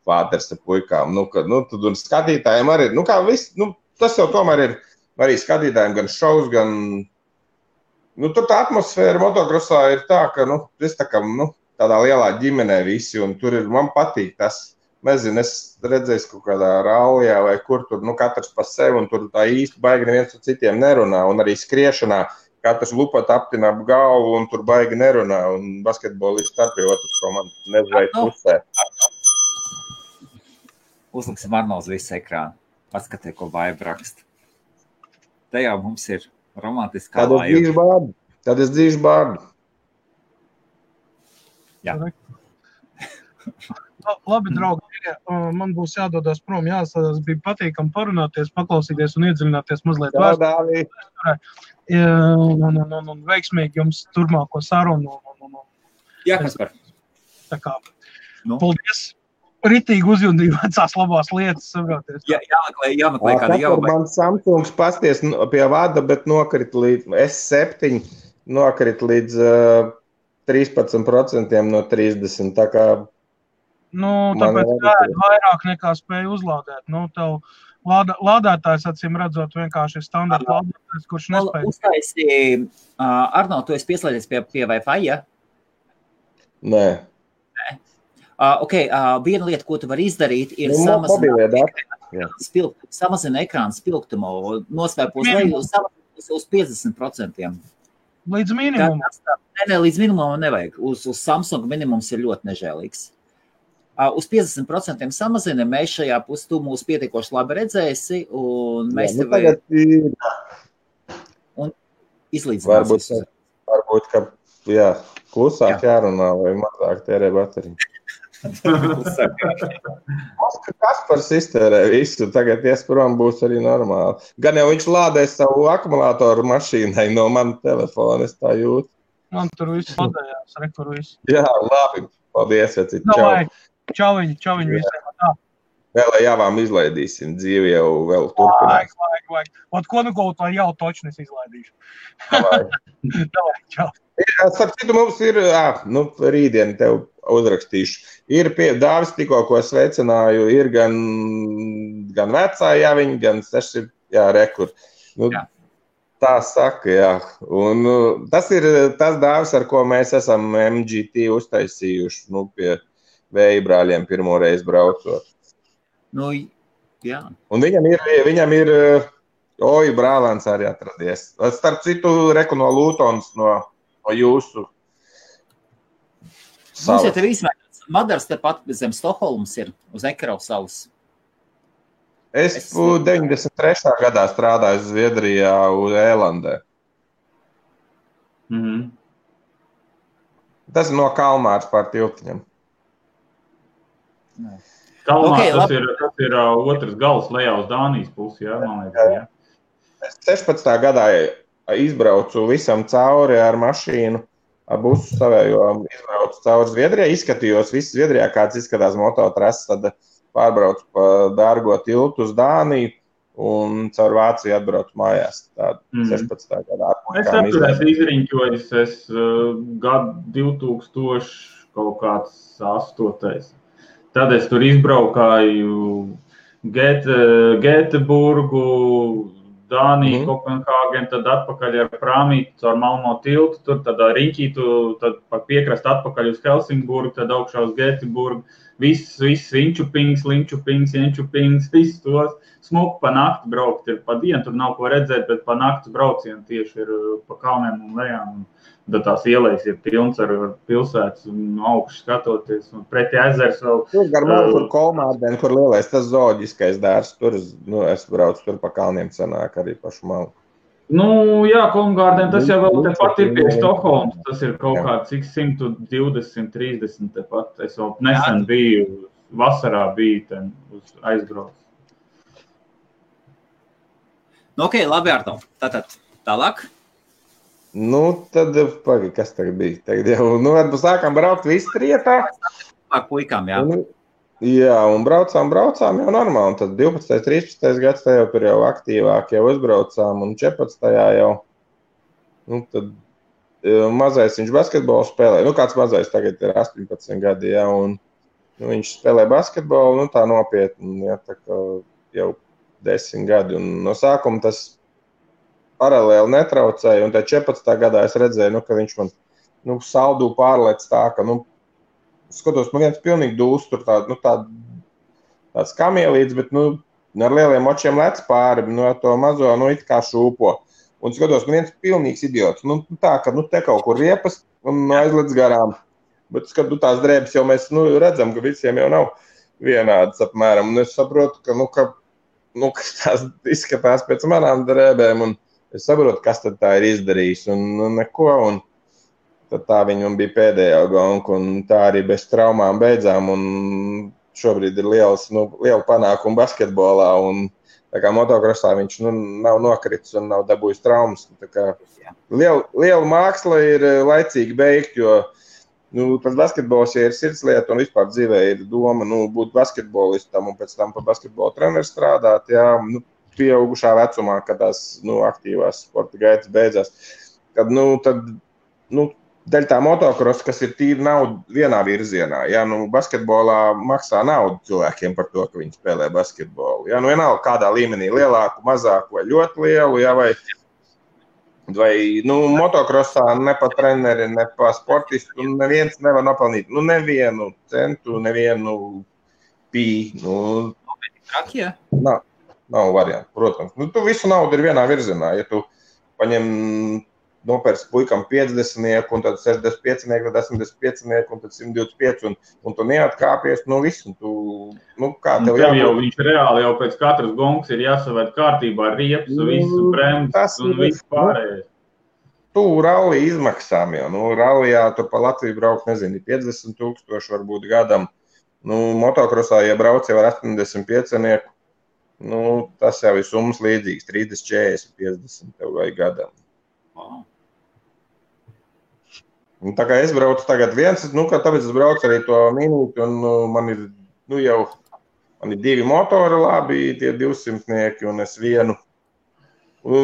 pāters ar puikām, tad un skatītājiem arī, kā viss, tas jau tomēr ir arī skatītājiem gan šovs, gan, tur tā atmosfēra motokrosā ir tā, ka, es tā kā, tādā lielā ģimenē visi, un tur ir, man patīk tas, nezinu, es redzēju kaut kādā rallijā vai kur tur, katrs pa sevi un tur tā īsti baigi neviens ar citiem nerunā un arī skriešanā katrs lupat aptina ap galvu un tur baigi nerunā un basketbolisti starp pie otras komandas nezveic pusē. Uzliksim Arnolds visu ekrānu. Paskatē, ko Vaiba raksta. Te jau mums ir romantiskā laiva. Tad es dzīšu bārdu. Jā. Labi, draugi, man būs jādodas prom, jāsādās, bija patīkami parunāties, paklausīties un iedziļināties mazliet vēsturē. Un veiksmīgi jums turmāko sarunu. Jā, Kaspar. Tā kā, paldies. Ritīgi uzjundīja vecās labās lietas, saproties. Jāmeklē kāda jauma. Man Samsungs pasties pie vada, bet nokrit līdz S7, nokrit līdz 13% no 30, tā kā... Tāpēc vairāk nekā spēja uzlādēt. Tev lādētājs, acīm redzot, vienkārši ir standarta lādētājs, kurš nespēja. Uztaisīja, Arnold, tu esi pieslēdzies pie Wi-Fi, ja? Nē. Viena lieta, ko tu vari izdarīt, ir samazina ekrāna spilgtumu, noslēpos leju uz 50%. Līdz minimumam? Nē, līdz minimumam nevajag. Uz Samsung minimums ir ļoti nežēlīgs. Uz 50% samazina, mēs šajā pusē tu mūs pietiekoši labi redzēsi, un mēs tev un izlīdzināsim. Varbūt, ka klusāk jārunā vai mazāk tērē bateriju. Kaspars iztērē visu, tagad iesprom būs arī normāli. Gan jau viņš lādēs savu akumulātoru mašīnai no mana telefona, es tā jūtu. Man tur viss lādējās, rekur viss. Jā, labi, paldies, vecīt, Čauviņ visiem. Vēl jāvām izlaidīsim, dzīvi jau vēl turpinās. Vajag. Ko kaut vai jau točnis izlaidīšu. Davai, čau. Starp citu, mums ir, rītdien tev uzrakstīšu. Ir Dāvis tikko, ko sveicināju, ir gan vecā jāviņa, gan 6, rekur. Tā saka, Un tas ir tas Dāvis, ar ko mēs esam MGT uztaisījuši, pie Vēja brāļiem pirmo reizi braucot. Jā. Un viņam ir brālēns arī atradies. Starp citu, reku no Lūtons, no jūsu salas. Mums jau tev izmēģināts. Madars tepat zem Stokholmas ir uz Ekerau salas. Es 93. gadā strādāju Zviedrijā uz Ēlandē. Tas ir no Kalmāras pār tiltiņam. Kalmārs, tas ir otrs gals lejā uz Dānijas pusi, man liekas, 16. gadā izbraucu visam cauri ar mašīnu, ar busu savējo, izbraucu cauri Zviedrijā, izskatījos visu Zviedrijā, kāds izskatās mototrases, tad pārbraucu pa dārgo tiltu uz Dāniju un caur Vāciju atbraucu mājās. Tāda 16. gadā. Es atturēs izriņķojis, gadu 2000 kaut kāds 8. Tad es tur izbraukāju Gēteburgu, Dāniju, Kopenhāgenu, tad atpakaļ ar prāmīti caur Malmo tiltu, tur tad riņķītu, tad pa piekrast atpakaļ uz Helsingburgu, tad augšā uz Gēteburgu. Viss Linčupings, viss tos. Smuku pa nakti braukt ir pa dienu, tur nav ko redzēt, bet pa nakti braucienu tieši ir pa kalniem un lejām. Tad tās ielejas ir pilns ar pilsētas un augšu skatoties. Un pretī ezers vēl... Tur gar malu tur Kolmārdeni, kur lielais tas zooloģiskais dārs. Tur es braucu tur pa kalniem sanāk arī pašu malu. Kolmārdeni, tas jau vēl tepat ir pie Stokholmas. Tas ir kaut kāds 120, 30 tepat. Es vēl nesen biju, vasarā biju ten uz aizbraucu. Labi, Arto. Tātad tālāk. Tad, kas tagad bija? Tagad jau, sākām braukt visi trietā. Ar puikām, jā. Un braucām jau normāli. Un tad 12. 13. gads jau tur jau aktīvāk jau uzbraucām un 14. jau. Tad mazais viņš basketbolu spēlē. Kāds mazais tagad ir 18 gadi, jā. Un viņš spēlē basketbolu, tā nopietni, jā, tā kā jau 10 gadi. Un no sākuma tas paralēli netraucēja, un tad 14. gadā es redzēju, ka viņš man, saldū pārlec tā, ka, skatos, man viens pilnīgi dūs tur tādu tāds kamielīts, bet, ar lieliem očiem lec pāri, ar to mazo, it kā šūpo. Un skatos, viens pilnīgs idiots. Tā, ka, te kaut kur riepas un aizlec garām. Bet, kad tās drēbes jau mēs redzam, ka visiem jau nav vienādas apmēram. Un es saprotu, ka tās izskatās pēc manām drēbēm, un es saprotu, kas tad tā ir izdarījis, un neko, un tad tā viņam bija pēdējā gonka, un tā arī bez traumām beidzām, un šobrīd ir liela panākuma basketbolā, un tā kā motokrosā viņš nav nokritis un nav dabūjis traumas. Tā kā liela māksla ir laicīgi beigt, jo tas basketbols ir sirdslieta un vispār dzīvē ir doma būt basketbolistam un pēc tam par basketbolu treneru strādāt, pieaugušā vecumā, kad tās aktīvās sporta gaitas beidzās. Kad, daļa tā motokrosa, kas ir tīri nauda vienā virzienā. Basketbolā maksā naudu cilvēkiem par to, ka viņi spēlē basketbolu. Vienalga kādā līmenī, lielāku, mazāku vai ļoti lielu, vai motokrosā ne pa treneri, ne pa sportistu, neviens nevar nopelnīt nevienu centu, nevienu pī. Nav variantu, protams. Tu visu naudu ir vienā virzienā. Ja tu paņem nopērts puikam 50, un tad 65, tad 85, un tad 125, un tu neatkāpies, visu. Kā tev jau viņš reāli jau pēc katras gongas ir jāsavērt kārtībā riepas, visu bremzes un visu pārējais. Tu ralli izmaksām jau. Rallijā tu pa Latviju braukt, 50,000 varbūt gadam. Motokrosā, ja brauc jau ar 85, tas jau ir summas līdzīgs, 30, 40, 50 tev vai gadam. Wow. Tā kā es braucu tagad viens, tāpēc es braucu arī to minūti, un man ir, man ir 2 motori labi, tie 200, un es vienu.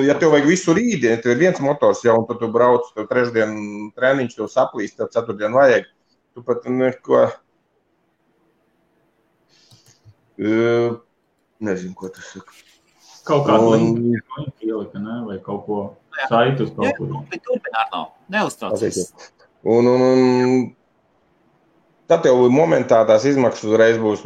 Ja tev vajag visu rītdienu, tev ir viens motors jau, un tad tu brauc, tev trešdien treniņš, tev saplīst, tev ceturtdien vajag. Tu pat neko, nezinu, ko tas saka. Kaut kādu līniju ielika, ne? Vai kaut ko saitus kaut kur. Turpināt nav, neuztraucies. Un tad tev momentā tās izmaksas uzreiz būs,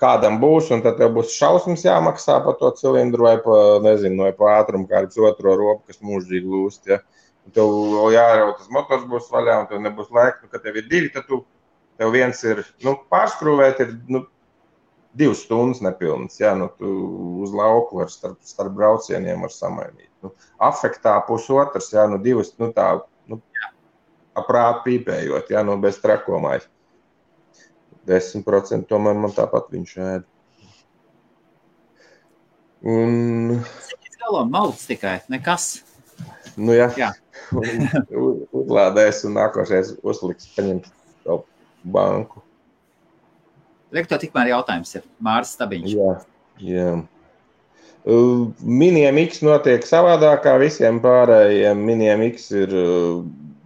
kādam būs, un tad tev būs šausmas jāmaksā par to cilindru vai vai pa ātrumu kāds otro ropu, kas mūžīgi lūst, ja. Un tev jārauj, tas motors būs vaļā, un tev nebūs laika, kad tev ir 2, tad tev viens ir, pārskrūvēt ir, 2 stundas nepilnas, ja, tu uz lauku var starp braucieniem var samainīt. Afektā pusotrs, ja, 2, tā, aprāt pīpējot, ja, bez trakomais. 10% tomēr man tāpat viņš ēd. Cik galām malts tikai, nekas. Jā. Uzlādēs un nākošais uzliks paņemt savu banku. Rektor, tikmēr jautājums ir Māris Stabiņš. Jā. Miniem X notiek savādāk kā visiem pārējiem. Miniem X ir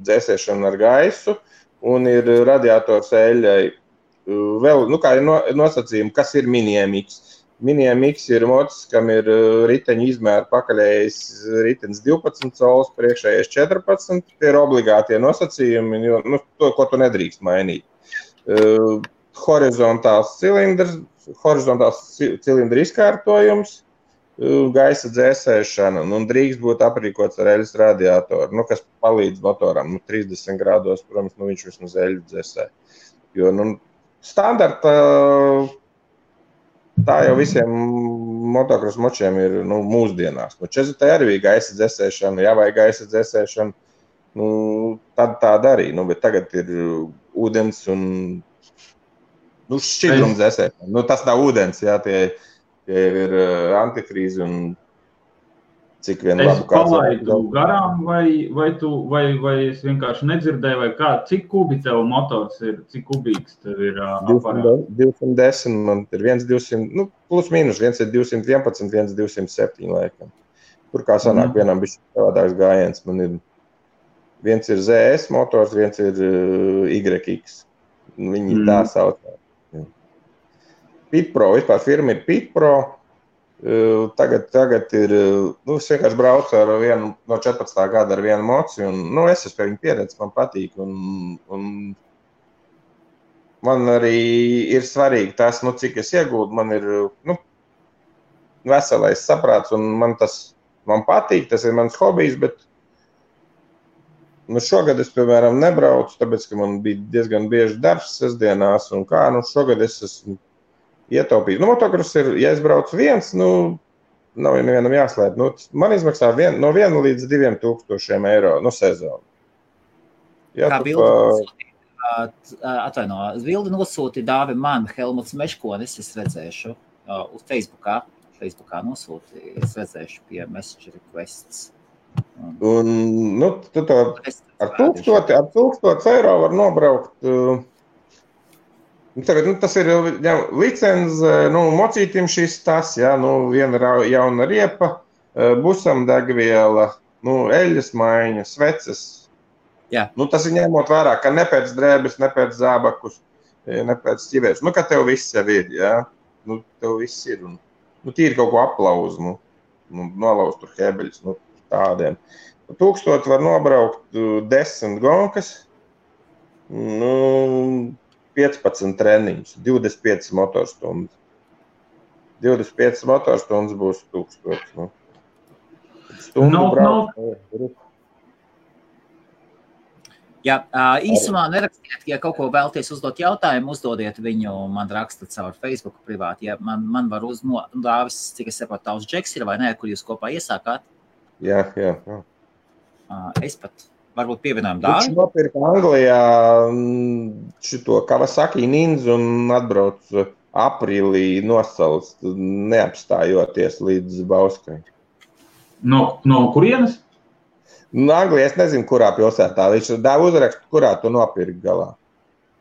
dzēsēšana ar gaisu un ir radiators eļļai. Vēl, kā ir nosacījumi, kas ir Miniem X. Miniem X ir mocis, kam ir riteņu izmēra pakaļējais ritenis 12 colis, priekšējais 14. Tie ir obligātie nosacījumi, jo to, ko tu nedrīkst mainīt. Horizontāls cilindra izkārtojums, gaisa dzēsēšana, un drīkst būt aprīkots ar eļas radiatoru, kas palīdz motoram. 30 grādos, protams, viņš vismaz eļu dzēsē. Jo, standarta, tā jau visiem motokros močiem ir mūsdienās. 40 arī bija gaisa dzēsēšana, ja vai gaisa dzēsēšana, tad tā darīja. Bet tagad ir ūdens un šķidrums dzēsēšana. Tas nav ūdens, jā, tie ir antifrīzi un cik vien labu kāds. Es palaidu garām vai es vienkārši nedzirdēju, vai kā, cik kubi tev motors ir, cik kubīgs tev ir aparāts? 210, man ir 1,200, plus mīnus, viens ir 211, viens 207 laikam. Tur kā sanāk vienam bišķi savādāks gājiens, man ir, viens ir ZS motors, viens ir YX. Viņi tā sauc. Pitpro, vispār firma ir Pitpro. Tagad ir, es vienkārši braucu ar vienu no 14. gada ar vienu moci, un, es esmu pie viņa pieredzi, man patīk, un man arī ir svarīgi tas, cik es iegūdu. Man ir veselais saprāts, un man patīk, tas ir mans hobijs, bet šogad es, piemēram, nebraucu, tāpēc, ka man bija diezgan bieži darbs sestdienās, un šogad es esmu ietaupījis. Motokross ir, ja es braucu viens, nav nevienam jāslēp. Man izmaksā no 1 līdz 2 tūkstošiem eiro sezonu. Kā bildi nosūti dāvi man Helmuts Meškonis, es redzēšu uz Facebookā nosūti, es redzēšu pie Messenger requests. Un, tu to ar 1000 eiro var nobraukt. Tagad, tas ir licenze, mocītim šis tas, viena jauna riepa, busam degviela, eļas maiņa, sveces. Jā. Tas ir ņemot vērā, ka ne pēc drēbes, ne pēc zābakus, ne pēc ķivēs. Ka tev viss jau ir, tev viss ir. Un, tīri kaut ko aplauzu, nolauz tur hebeļus, tādiem. 1000 var nobraukt 10 gonkas, 15 treniņus, 25 motorstundas. 25 motorstundas būs 1000. Stundu braukt. Jā, īsumā nerakstiet, ja kaut ko vēlties uzdot jautājumu, uzdodiet viņu, man rakstat caur Facebook privāti. Ja man var uzdāvis, cik es saprotu, tavs Džeks ir vai nē, kur jūs kopā iesākāt? Jā. Es pat varbūt pievienojumu dāvi. Viņš nopirka Anglijā šito Kawasaki Ninja un atbrauc aprīlī nosals, neapstājoties līdz Bauskai. No kurienes? Anglijā es nezinu, kurā pilsētā. Viņš dāva uzrakstu, kurā tu nopirki galā.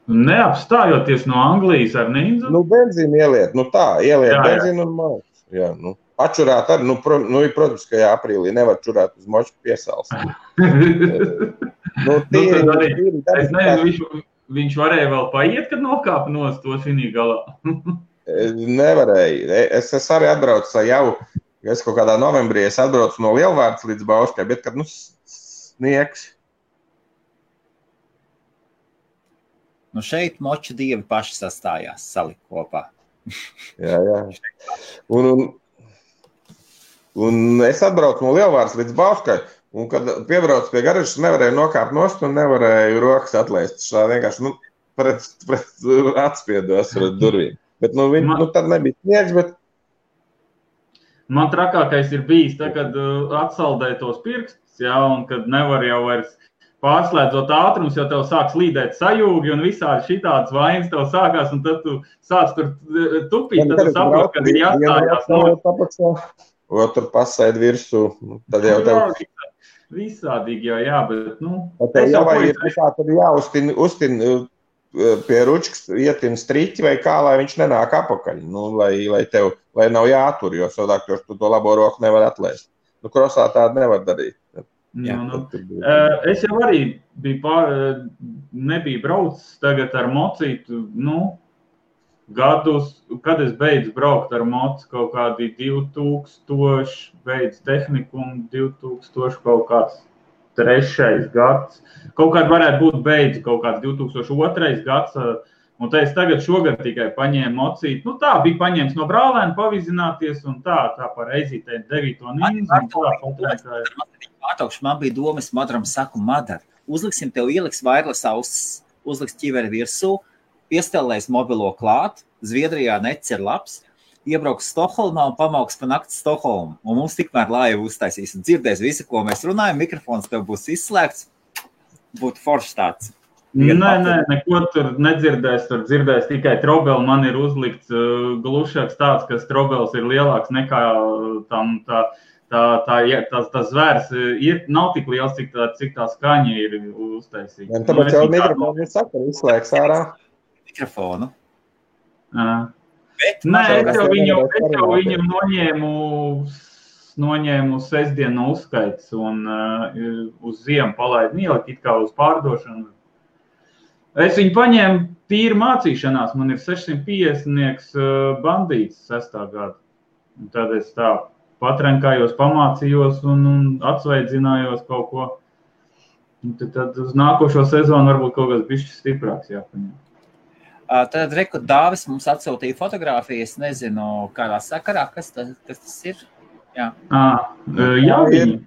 Neapstājoties no Anglijas ar Ninja? Benzīnu ieliet, ieliet benzīnu un malku. Jā, pačurāt arī, protams, ka aprīlī nevar čurāt uz moču piesals. Es nezinu, viņš varēja vēl paiet, kad nokāpa nost to šinī galā. Nevarēja. Es arī atbraucu jau, es kaut kādā novembrī atbraucu no Lielvārdas līdz Bauskai, bet kad, sniegs. Šeit moču dievi paši sastājās, salikt kopā. Jā. Un es atbraucu no Lielvārdas līdz Bauskai, un kad piebraucu pie garažas, nevarēju nokāpt nost un nevarēju rokas atlaist. Šā vienkārši, pret atspiedos pret durvīm. Bet, tad nebija sniegs, bet man trakākais ir bijis, kad atsaldēja tos pirkstus, un kad nevar jau vairs pārslēdzot ātrumus, jo tev sāk slīdēt sajūgi un visādi šitādas vainas tev sākās, un tad tu sāc tur tupīt, tad tu saproti, kad ir jāstājās. Tur pasaid virsū, tad jau tev... Visādīgi jau, bet, Tev jau ir jāuztin pie ručkas ietin striķi vai kā, lai viņš nenāk apakaļ, lai nav jātur, jo savādāk tu to labo roku nevar atlaist. Krosā tādu nevar darīt. Es jau arī nebiju braucis tagad ar mocītu, gadus, kad es beidzu braukt ar mocu, kaut kādi 2000, beidzu tehniku un 2000 kaut kāds 3. gads. Kaut kāds varētu būt beidzu, kaut kāds 2002. gads, un te es tagad šogad tikai paņēmu mocīt. Tā bija paņēmis no brālēna pavizināties un tā par eizītēm 9. Ninja. Man bija doma, es Madaram saku, Madar, uzliksim tev ieliks wireless ausis, uzliks ķiveri virsū, piestelēs mobilo klāt, Zviedrijā nets ir labs, iebrauks Stokholmā un pamauks pa nakti Stokholmu. Un mums tikmēr laivu uztaisīs un dzirdēs visu, ko mēs runājam, mikrofons tev būs izslēgts, būtu foršs tāds. Nē, neko tur nedzirdēs, tur dzirdēs tikai trobeli, man ir uzlikts glušāks tāds, ka trobels ir lielāks nekā tas zvērs nav tik liels, cik tā skaņa ir uztaisīta. Tāpēc jau mikrofonu ir saka, izslēgs ārā. Mikrofonu. Es jau viņu noņēmu sestdienu no uzskaits un uz ziemu palaidu ielikt it kā uz pārdošanu. Es viņu paņēmu tīri mācīšanās, man ir 650 bandīts 6. gada. Un tad es tā patrenkājos, pamācījos un atsveidzinājos kaut ko. Un tad uz nākošo sezonu varbūt kaut kas bišķi stiprāks jāpaņem. Tad reku Dāvis mums atsūtīja fotogrāfijas, nezinu, kādā sakarā, kas tas ir. Jā. Javiņi.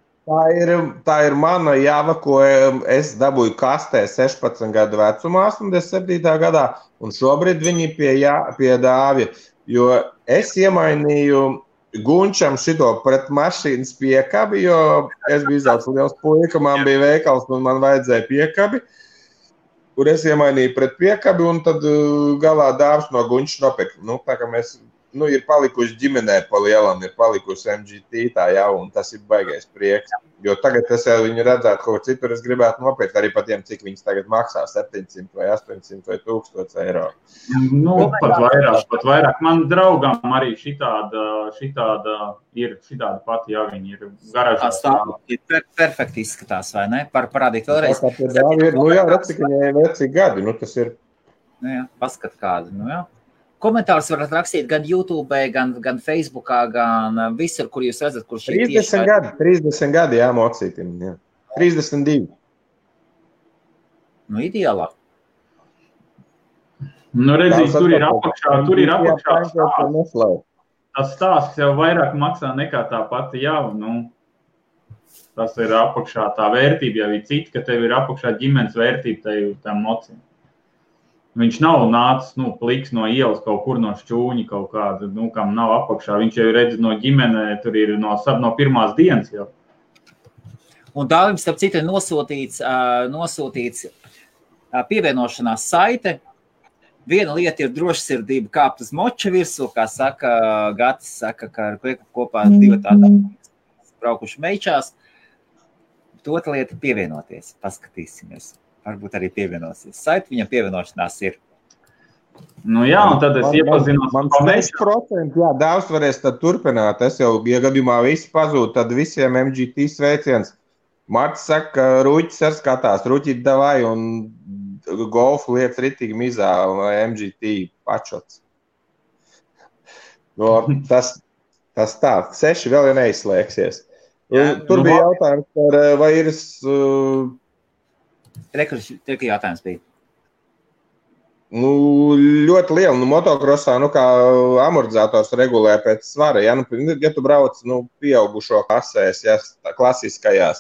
Tā ir mana java, ko es dabūju kastē 16 gadu vecumā, 87. gadā, un šobrīd viņi pie Dāvja, jo es iemainīju Gunčam šito pret mašīnas piekabi, jo es biju izaugs liels puika, man bija veikals un man vajadzēja piekabi, kur es iemainīju pret piekabi, un tad galā Dāvs no Gunča nopirka. Tā kā mēs ir palikuši ģimenē pa lielam, ir palikusi MGT tā jau, un tas ir baigais prieks. Jo tagad es jau viņu redzētu, kaut citur es gribētu nopirkt arī par tiem, cik viņas tagad maksā, 700 vai 800 vai 1000 eiro. Pat vairāk. Man draugam arī šitāda pati javiņa ir garažā. Tas perfekti izskatās, vai ne? Parādīt vēlreiz. Jā, redz, cik viņai vecīgi gadi, tas ir. Jā, paskat kādu, jā. Komentārus varat rakstīt gan YouTube, gan Facebookā, gan visur, kur jūs redzat, kur šī 30 gadi, jā, mocītim, jā. 32. Ideālā. Redzīt, tur ir apakšā tas stāsts jau vairāk maksā nekā tā pati jau, tas ir apakšā tā vērtība, jau ir cita, ka tev ir apakšā ģimenes vērtība tam mocim. Viņš nav nācis, pliks no ielas kaut kur no šķūņa kaut kāda, kam nav apakšā. Viņš jau redz no ģimenē, tur ir no pirmās dienas jau. Un Dāvim, starp citu, ir nosūtīts pievienošanās saite. Viena lieta ir drošsirdība kāpt uz moča virsū, kā saka Gatis, ka ar Kveku kopā divi tādā braukuši meičās. Otra lieta ir pievienoties, paskatīsimies. Varbūt arī pievienosies. Saiti viņam pievienošanās ir. Jā, un tad es iepazinos. Man 6%, jā, Dāvs varēs tad turpināt. Es jau, ja gadījumā visi pazūd, tad visiem MGT sveiciens. Marts saka, ka Ruķis ar skatās, Ruķīt davai un golfu lietas ritīgi mizā vai MGT pačots. Tas tā, 6 vēl jau neizslēgsies. Tur bija jautājums par vai ir... Rekursi jautājums bija. Ļoti liela. Motokrosā, kā amortizators regulē pēc svara. Ja tu brauc pieaugušo klasēs, klasiskajās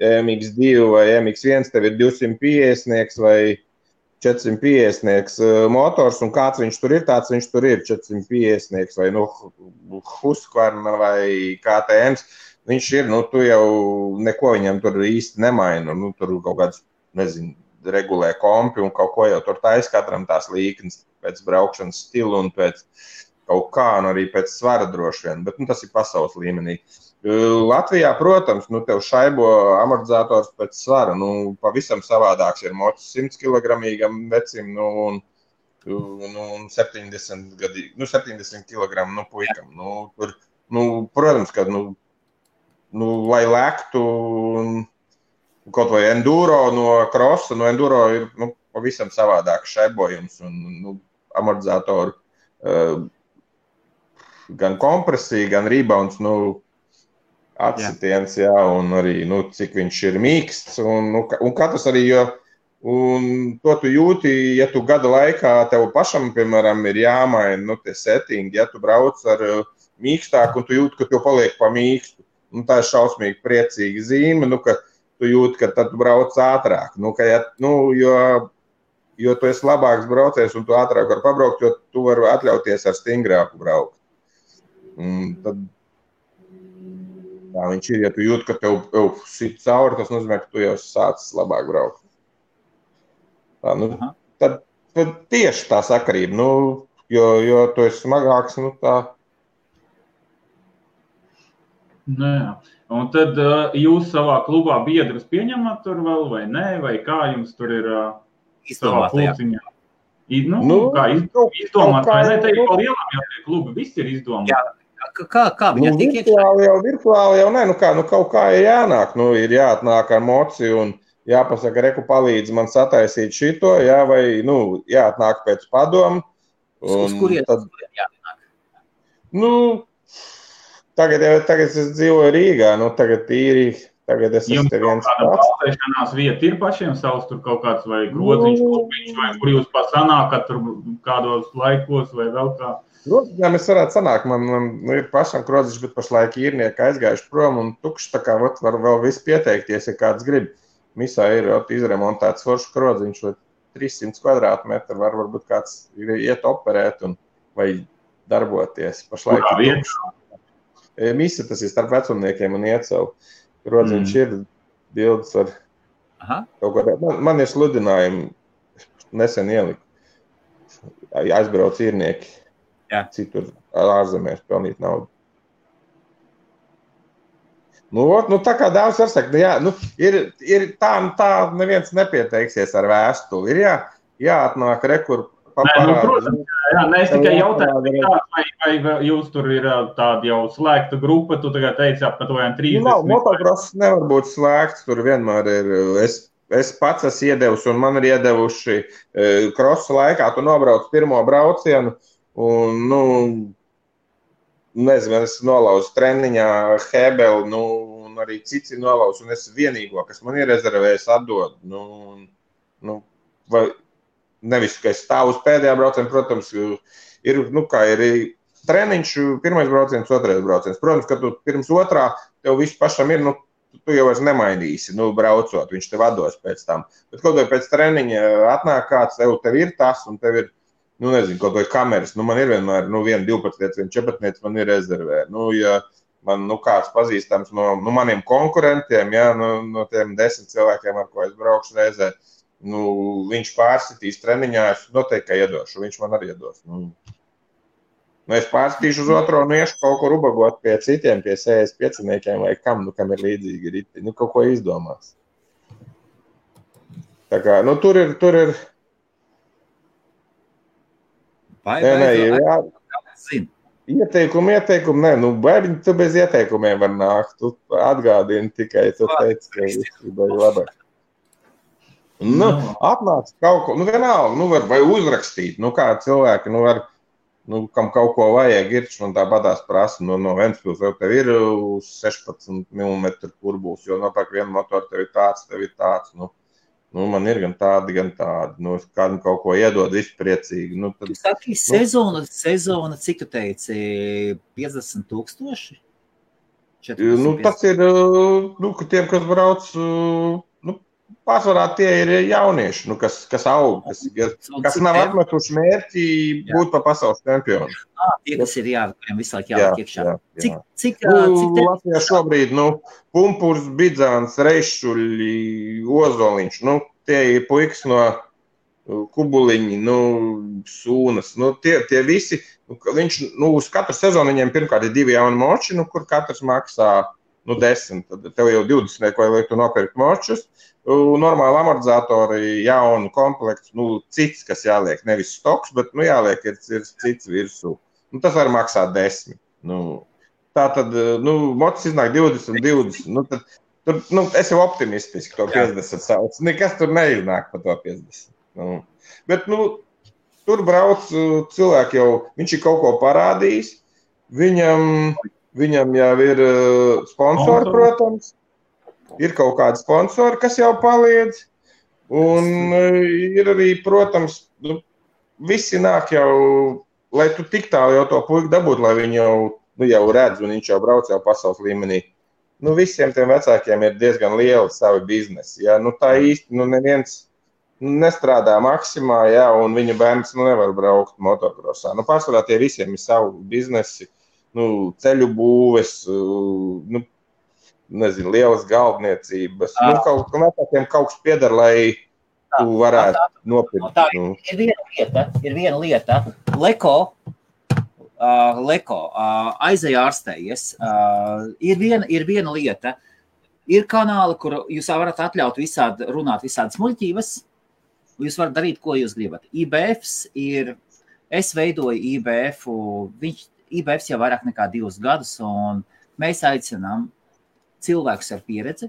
MX2 vai MX1, tev ir 250 vai 450 motors, un kāds viņš tur ir, tāds viņš tur ir 450 vai Husqvarna vai KTMs. Viņš ir, tu jau neko viņam tur īsti nemaina. Tur kaut kāds regulē kompi un kaut ko jau tur taisa katram tās līknes pēc braukšanas stilu un pēc kaut kā, un arī pēc svara droši vien, bet tas ir pasaules līmenī. Latvijā, protams, tev šaibo amortizators pēc svara, pavisam savādāks ir mocis 100 kilogramīgam vecim, un 70 kilogramu puikam. Tur, protams, ka, lai lektu kaut vai enduro no krosa, enduro ir pavisam savādāks šaibojums un amortizatoru gan kompresija, gan rebounds, atsitiens, jā, un arī, cik viņš ir mīksts, un katrs arī, un to tu jūti, ja tu gada laikā tev pašam, piemēram, ir jāmaina, tie settingi, ja tu brauc ar mīkstāku, un tu jūti, ka tev paliek pa mīkstu, tā ir šausmīgi priecīga zīme, ka tu jūti, ka tad tu brauc ātrāk, jo tu esi labāks braucējs un tu ātrāk var pabraukt, jo tu vari atļauties ar stingrāku braukt. Tad tā viņš ir, ja tu jūti, ka tev sit cauri, tas nozīmē, ka tu jau sācis labāk braukt. Tad tieši tā sakarība, jo tu esi smagāks, tā. Jā. Un tad jūs savā klubā biedrus pieņemat tur vēl vai nē, vai kā jums tur ir savā pulciņā? Kā izdomāt, vai ne? Te ir pa lielām jau tie klubi, viss ir izdomāt. Jā, kā viņa tik iekšā? Virtuāli jau nē, kaut kā ir jānāk, ir jāatnāk ar moci un jāpasaka, reku palīdz man sataisīt šito, jā, vai, jāatnāk pēc padomu. Uz kurien jāatnāk? Tagad es dzīvoju Rīgā, tagad tīri Tagad es esmu te viens pats. Jums balstēšanās vieta ir pašiem savs tur kaut kāds vai groziņš, klubiņš, vai kur jūs sanākat tur kādos laikos vai vēl kā? Groziņām es varētu sanākt, man ir pašam groziņš, bet pašlaik īrnieki aizgājuši prom un tukšs, tā kā var vēl viss pieteikties, ja kāds grib. Misā ir izremontēts foršs groziņš, 300 kvadrātmetru, varbūt kāds iet operēt vai darboties. Pašlaik ir tukšs. Misa tas ir starp vecumniekiem un Iecevu. Groziņš ir bildes ar kaut ko. Man ir sludinājumi, nesen ieliku. Aizbrauc īrnieki. Citur ārzemēs pelnīt naudu. Nu tā kā daudz var sakt, ir tā neviens nepieteiksies ar vēstuli. Ir jāatnāk rekur paparādi. Es tikai jautāju, vai jūs tur ir tāda jau slēgta grupa, tu tagad teici apmēram 30. Motocross nevar būt slēgts, tur vienmēr ir. Es pats esmu iedevusi un man ir iedevuši krosa laikā, tu nobrauc pirmo braucienu un, nezinu, es nolauzu treniņā Hebeli, un arī cits ir nolauzu, un es vienīgo, kas man ir rezervējis, atdod. Vai nevis, ka es stāvu uz pēdējā braucienu, protams, ir treniņš, pirmais brauciens, otrais brauciens. Protams, ka tu pirms otrā, tev viss pašam ir, tu jau vairs nemainīsi, braucot, viņš tev atdos pēc tam. Bet kaut vai pēc treniņa atnāk kāds, tev ir tas, un tev ir, nezinu, kaut vai kameras. Man ir vienmēr, viena 12, viena 14 man ir rezervē. Ja man, kāds pazīstams no maniem konkurentiem, no tiem 10 cilvēkiem, ar ko es braukšu reizē, viņš pārsitīs treniņā, es noteikti iedošu, viņš man arī iedos. Es pārsitīšu uz otro un iešu kaut kur ubagot pie citiem, pie 65-niekiem vai kam ir līdzīgi riti. Kaut ko izdomās. Tā kā, tur ir. Ieteikumi, bērni, tu bez ieteikumiem var nākt. Tu atgādini tikai, tu teici, ka viss ir labāk. Atnāc kaut ko, vienalga, vai uzrakstīt, kā cilvēki, kam kaut ko vajag, man tā badās prasa, no Ventspils jau tev ir 16 mm kurbuls, jo nopērk vienu motoru, tev ir tāds, man ir gan tādi, kādam kaut ko iedod, viss priecīgi. Tu saki, sezona, cik tu teici, 50,000? Tas ir, tiem, kas brauc, pārsvarā tie ir jaunieši, kas aug, kas nav atmetuši mērķi būt pa pasaules čempionu. Tie, kas ir kuriem visu laiku jāliek iekšā. Cik Latvijā šobrīd, Pumpurs, Bidzāns, Reišuļi, Ozoliņš, tie ir puikas no Kubuliņi, Sūnas, tie visi, viņš, uz katru sezonu viņiem pirmkārt ir 2 jauni moči, kur katrs maksā 10, tad tev jau 20, ko lai tu nopirkt močus, normāli amortizatori, jaunu komplektu, cits, kas jāliek, nevis stoks, bet, jāliek ir cits virsū. Tas var maksāt 10. Tā tad, mocis iznāk 20, tad, es jau optimistiski to 50 sauc. Nekas tur neiznāk pa to 50. Bet, tur brauc cilvēki jau, viņš ir kaut ko parādījis, viņam jau ir sponsori, protams, ir kaut kādi sponsori, kas jau palīdz, un ir arī, protams, visi nāk jau, lai tu tik tālu jau to puiku dabūt, lai viņi jau redz, un viņš jau brauc jau pasaules līmenī. Visiem tiem vecākiem ir diezgan lieli savi biznesi, tā īsti, neviens nestrādā maksimā, un viņa bērns nevar braukt motocrossā. Pārsvarā tie visiem ir savu biznesi, ceļu būves, nezinu, lielas galdniecības. Kaut kas piedara, lai tu varētu nopirkt. Ir viena lieta. Leko aizēja ārstējies. Ir viena lieta. Ir kanāli, kur jūs varat atļaut runāt visādas muļķības. Jūs varat darīt, ko jūs gribat. Es veidoju IBF-u. IBFs jau vairāk nekā 2 gadus, un mēs aicinām cilvēkus ar pieredzi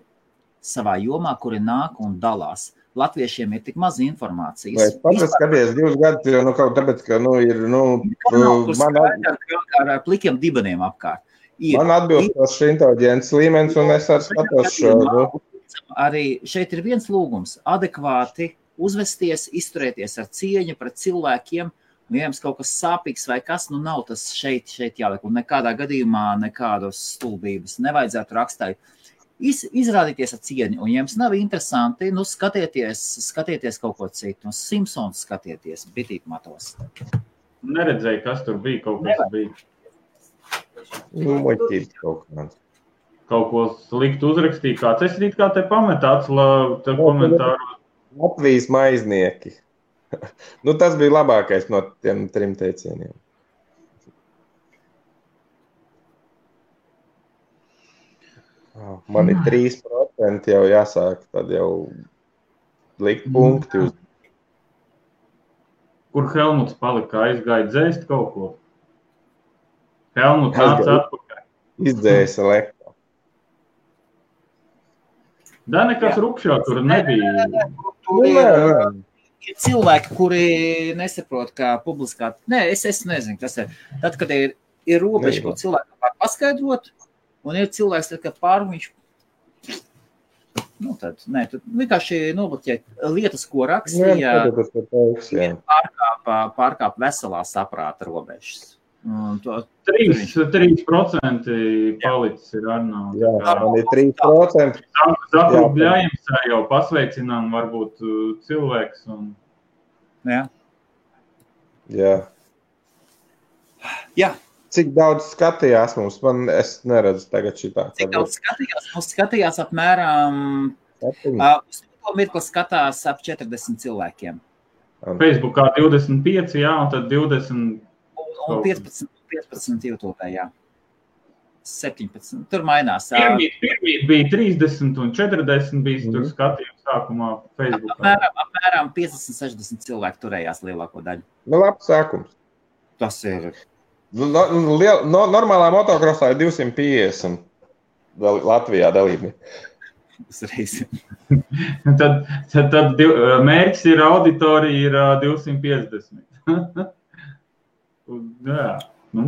savā jomā, kuri nāk un dalās. Latviešiem ir tik maz informācijas. Es pats skaties 2 gadus, jo, tāpēc, ka, ir, ar plikiem dibeniem apkārt. Man atbilstošs inteliģents līmenis, un es arī skatos šo. Arī šeit ir viens lūgums – adekvāti uzvesties, izturēties ar cieņu pret cilvēkiem, ja jums kaut kas sāpīgs vai kas, nav tas šeit jāliek, un nekādā gadījumā nekādas stulbības nevajadzētu rakstīt. Izrādīties ar cieņu, un ja jums nav interesanti, skatieties kaut ko citu, Simpsons skatieties, bitīt matos. Neredzēju, kas tur bija, kaut kas bija. Muļķīt kaut kāds. Kaut ko sliktu uzrakstīt kāds. Es rīt kā te pametāts komentāru. Latvijas maiznieki. Tas bija labākais no tiem 3 teicieniem. Man ir 3% jau jāsāk, tad jau likt punkti uz. Kur Helmuts palika? Aizgāja dzēst kaut ko? Helmuts nāca atpakaļ. Izdzēsa lekā. Da nekas rupšā tur nebija. Ir cilvēki, kuri nesaprot, kā publiskā... Es nezinu, kas ir. Tad, kad ir robeža, ko cilvēki var paskaidrot, un ir cilvēks, tad, kad viņš... tad vienkārši nobloķēt lietas, ko rakstīja, pārkāp veselā saprāta robežas. 3% palicis ir Arnau. Jā, man ir 3%. Zakru Bļājums jau pasveicinām varbūt cilvēks. Jā. Cik daudz skatījās mums? Es neredzu tagad šitā. Cik daudz skatījās? Mums skatījās apmēram... Uz to mirkli skatās ap 40 cilvēkiem. Facebookā 25, jā, un tad 20... Un 15 YouTube, jā. 17. Tur mainās. Pirmīt bija 30 un 40 bija tur skatījums sākumā Facebookā. Apmēram 50-60 cilvēki turējās lielāko daļu. Labs sākums. Tas ir... Normālā motokrosā ir 250 Latvijā dalībnieki. Uzreiz. tad mērķis ir auditorija ir 250. Jā.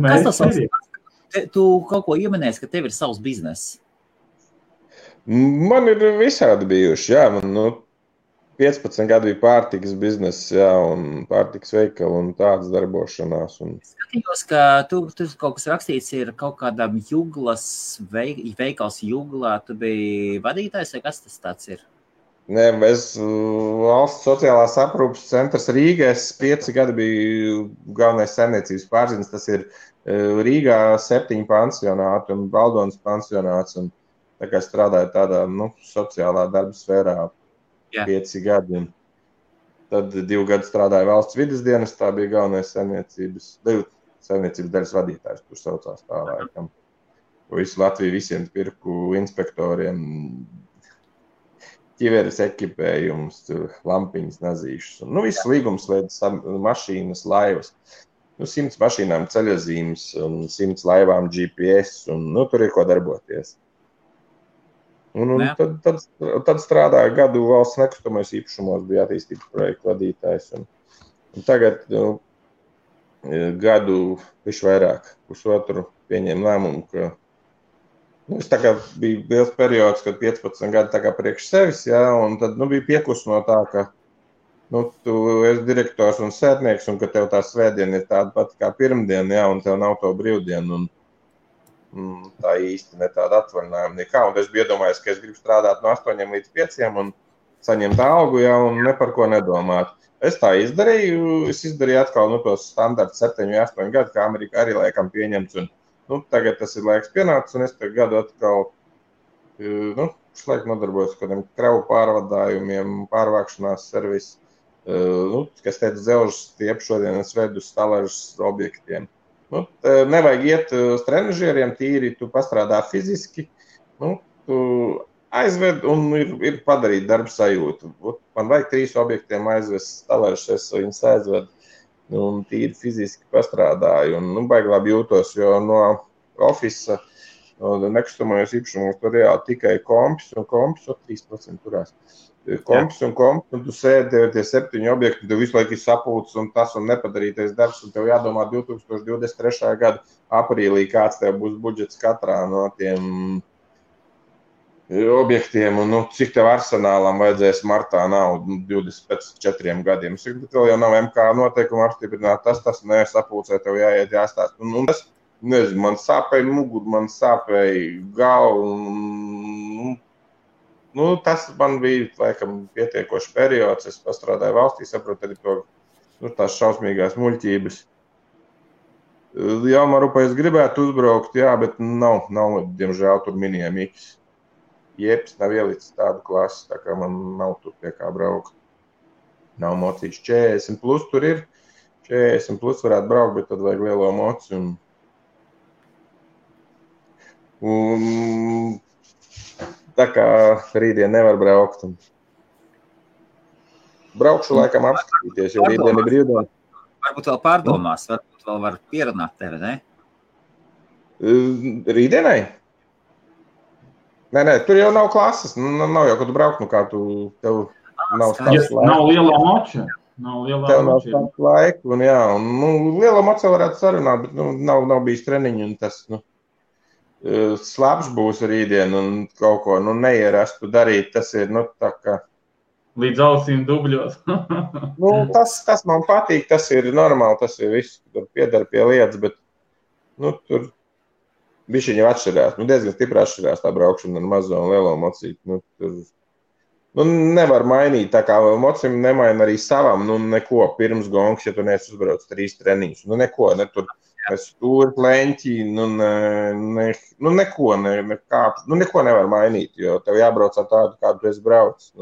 Kas tas ir? Tu kaut ko ieminēsi, ka tev ir savs bizness? Man ir visādi bijuši, jā. Man 15 gadu bija pārtikas bizness, jā, un pārtikas veikala un tādas darbošanās. Skatījos, ka tu kaut kas rakstīts ir kaut kādam Juglas, veikals Juglā. Tu biji vadītājs, vai kas tas tāds ir? Nē, es valsts sociālās aprūpes centrs Rīgā, es 5 gadi biju galvenais saimniecības pārziņas, tas ir Rīgā 7 pansionāti un Baldonas pansionāts, un tā kā strādāju tādā, sociālā darba sfērā 5 gadi, un tad 2 gadi strādāju valsts vides dienas, tā bija galvenais saimniecības daļas vadītājs, tur saucās tā laikam. Visu Latviju visiem pirku inspektoriem, ķiveres ekipējums, lampiņas, nazīšas. Viss līgums lietas, mašīnas, laivas. 100 mašīnām ceļazīmes un 100 laivām GPS, un tur ir ko darboties. Tad strādāju gadu valsts nekustamais īpašumos, bija attīstības projektu vadītājs. Un tagad gadu visu vairāk, pusotru pieņēmu lēmumu, ka es tā kā bija liels periods, kad 15 gadi tā kā priekš sevis, jā, un tad bija piekus no tā, ka tu esi direktors un sētnieks, un ka tev tā svētdiena ir tāda pati kā pirmdiena, jā, un tev nav to brīvdienu, un tā īsti ne tāda atvaļinājuma nekā. Un es biju iedomājies, ka es gribu strādāt no 8 līdz 5 un saņemt algu, jā, un ne par ko nedomāt. Es tā izdarīju, atkal tos standarts 7-8 gadu, kā Amerikā arī laikam pieņemts, un tagad tas ir laiks pienācis, un es te gadu atkal, šlaik nodarbojos kādiem kravu pārvadājumiem, pārvākšanās servisu, kas teica dzelžas stiep, šodien es vedu stalažas objektiem. Nevajag iet uz trenažieriem tīri, tu pastrādā fiziski, tu aizved un ir padarīt darbu sajūtu. Man vajag 3 objektiem aizvest stalažas, es viņus aizvedu. Tīri fiziski pastrādāju un baigi labi jūtos, jo no ofisa nekustamajos īpašumos tur reāli tikai kompis un 3% turās. Kompis un tu sēdi tie 7 objekti, tev visu laiku ir sapulcs un tas un nepadarītais darbs, un tev jādomā 2023. Gada aprīlī, kāds tev būs budžets katrā no tiem objektiem, un cik tev arsenālam vajadzēs martā naudu 24 gadiem. Bet vēl jau nav MK noteikuma apstiprināt, tas sapulcē tev jāiet jāstāst. Un tas, nezinu, man sāpēja muguru, man sāpēja galvu. Tas man bija, laikam, pietiekošs periods. Es pastrādāju valstī, saprotu arī to, tās šausmīgās muļķības. Jā, Marupā es gribētu uzbraukt, jā, bet nav diemžēl, tur minējamīgs. Jeps nav ielicis tādu klasi, tā kā man nav tur pie kā braukt. Nav mocīšu 40 plus tur ir. 40 plus varētu braukt, bet tad vajag lielo moci. Un tā kā rītdien nevar braukt. Braukšu laikam apskatīties, jo rītdien ir brīvdiena. Varbūt vēl pārdomās, varbūt vēl var pierunāt tevi, ne? Rītdienai? Nē, tur jau nav klases. Nav jau, kad tu braukt, kā tev nav stāsts laika. Nav lielā moča. Tev nav stāsts laika. Un lielā moča varētu sarunāt, bet nav bijis treniņi. Un tas slabs būs rītdien un kaut ko neierastu darīt. Tas ir tā kā... Līdz ausīm dubļos. Tas man patīk, tas ir normāli, tas ir viss, tur piedara pie lietas, bet tur... Bišķiņi jau atšķirās, diezgan stipri atšķirās tā braukšana ar mazo un lielo mocīti. Nevar mainīt, tā kā mocim nemaina arī savam, neko pirms gongs, ja tu neesi uzbrauc 3 treniņus. Neko, ne tur stūri, leņķi, neko nevar mainīt, jo tev jābrauc ar tādu, kādu tu esi braucis.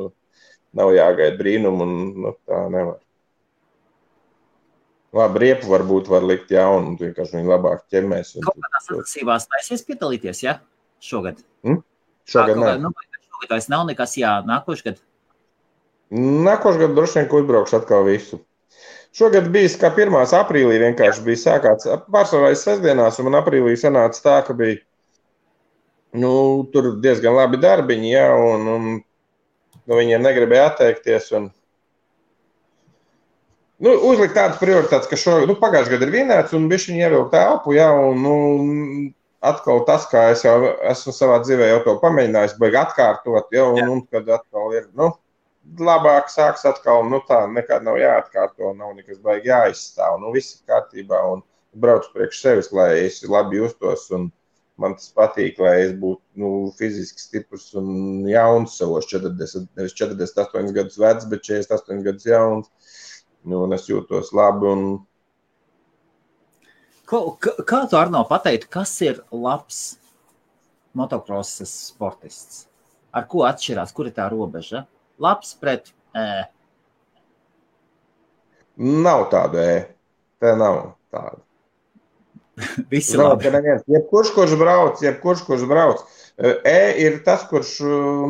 Nav jāgaida brīnumu un tā nevar. Labi, riepu varbūt var likt jaunu, un vienkārši viņi labāk ķemmēs. Kaut kādās sacensībās taisies piedalīties, ja? Šogad? Šogad nē. Šogad vairs nav nekas, jā, nākošgad? Nākošgad droši vien, ko uzbraukšu atkal visu. Šogad bijis, kā 1. aprīlī vienkārši bija sākāts, pārsvarājas sestdienās, un man aprīlī sanāca tā, ka bija, tur diezgan labi darbiņi, jā, un viņiem negribēja atteikties, un uzlikt tādas prioritātes, ka pagājušajā gadā ir vienāds un bišķiņi ievilkt elpu, jā, un atkal tas, kā es jau esmu savā dzīvē jau to pamēģinājis, baigi atkārtot, jā, un kad atkal ir, labāk sāks atkal, tā nekad nav jāatkārto, nav nekas baigi jāizstāv, viss ir kārtībā un braucu priekš sevis, lai es labi justos un man tas patīk, lai es būtu, fiziski stiprs un jauns savos 40, nevis 48 gadus vecs, bet 48 gadus jauns. Un es jūtos labi. Kā tu, Arno, pateiktu, kas ir labs motocrossas sportists? Ar ko atšķirās? Kur ir tā robeža? Labs pret Nav tāda Tā nav tāda. Visi labi. Jebkurš, kurš brauc. Ir tas, kurš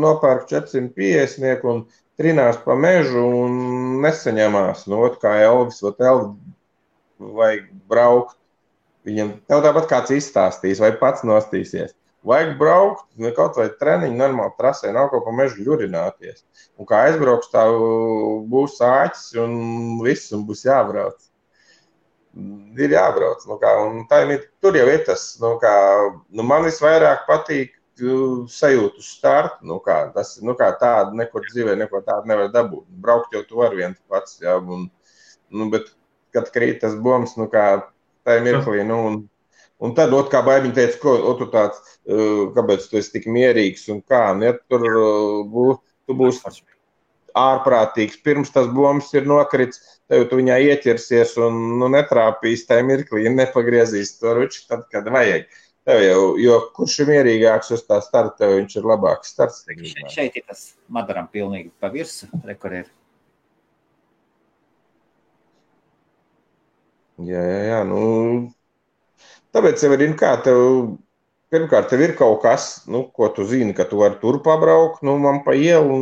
nopērk 450 un trinās pa mežu un nesaņemās. Kā Elvis, vajag braukt. Viņam tev tāpat kāds izstāstīs vai pats nostīsies. Vajag braukt, kaut vai treniņu normāli trasē, nav kaut pa mežu ļurināties. Un kā aizbrauks, tā būs āķis un viss, un būs jābrauc. Ir jābrauc. Tur jau ir tas, man visvairāk patīk sajūtu startu, tādu nekur dzīvē, neko tādu nevar dabūt. Braukt jau tu var viens pats, jā, bet, kad krīt tas bombs, tā mirklī, un tad, kā baibiņi teica, tu tāds, kāpēc tu esi tik mierīgs, un kā, ja tu būsi ārprātīgs, pirms tas bombs ir nokrits, tev tu viņā ieķersies un netrāpīs tajā mirklī, nepagriezīs to ruči, tad, kad vajag. Tev jau, jo kurš ir mierīgāks uz tā starta, tev viņš ir labāks starts. Šeit ir tas Madaram pilnīgi pa virsu, kur ir. Jā, tāpēc jau ir, pirmkārt, tev ir kaut kas, ko tu zini, ka tu vari tur pabraukt, man pa ielu,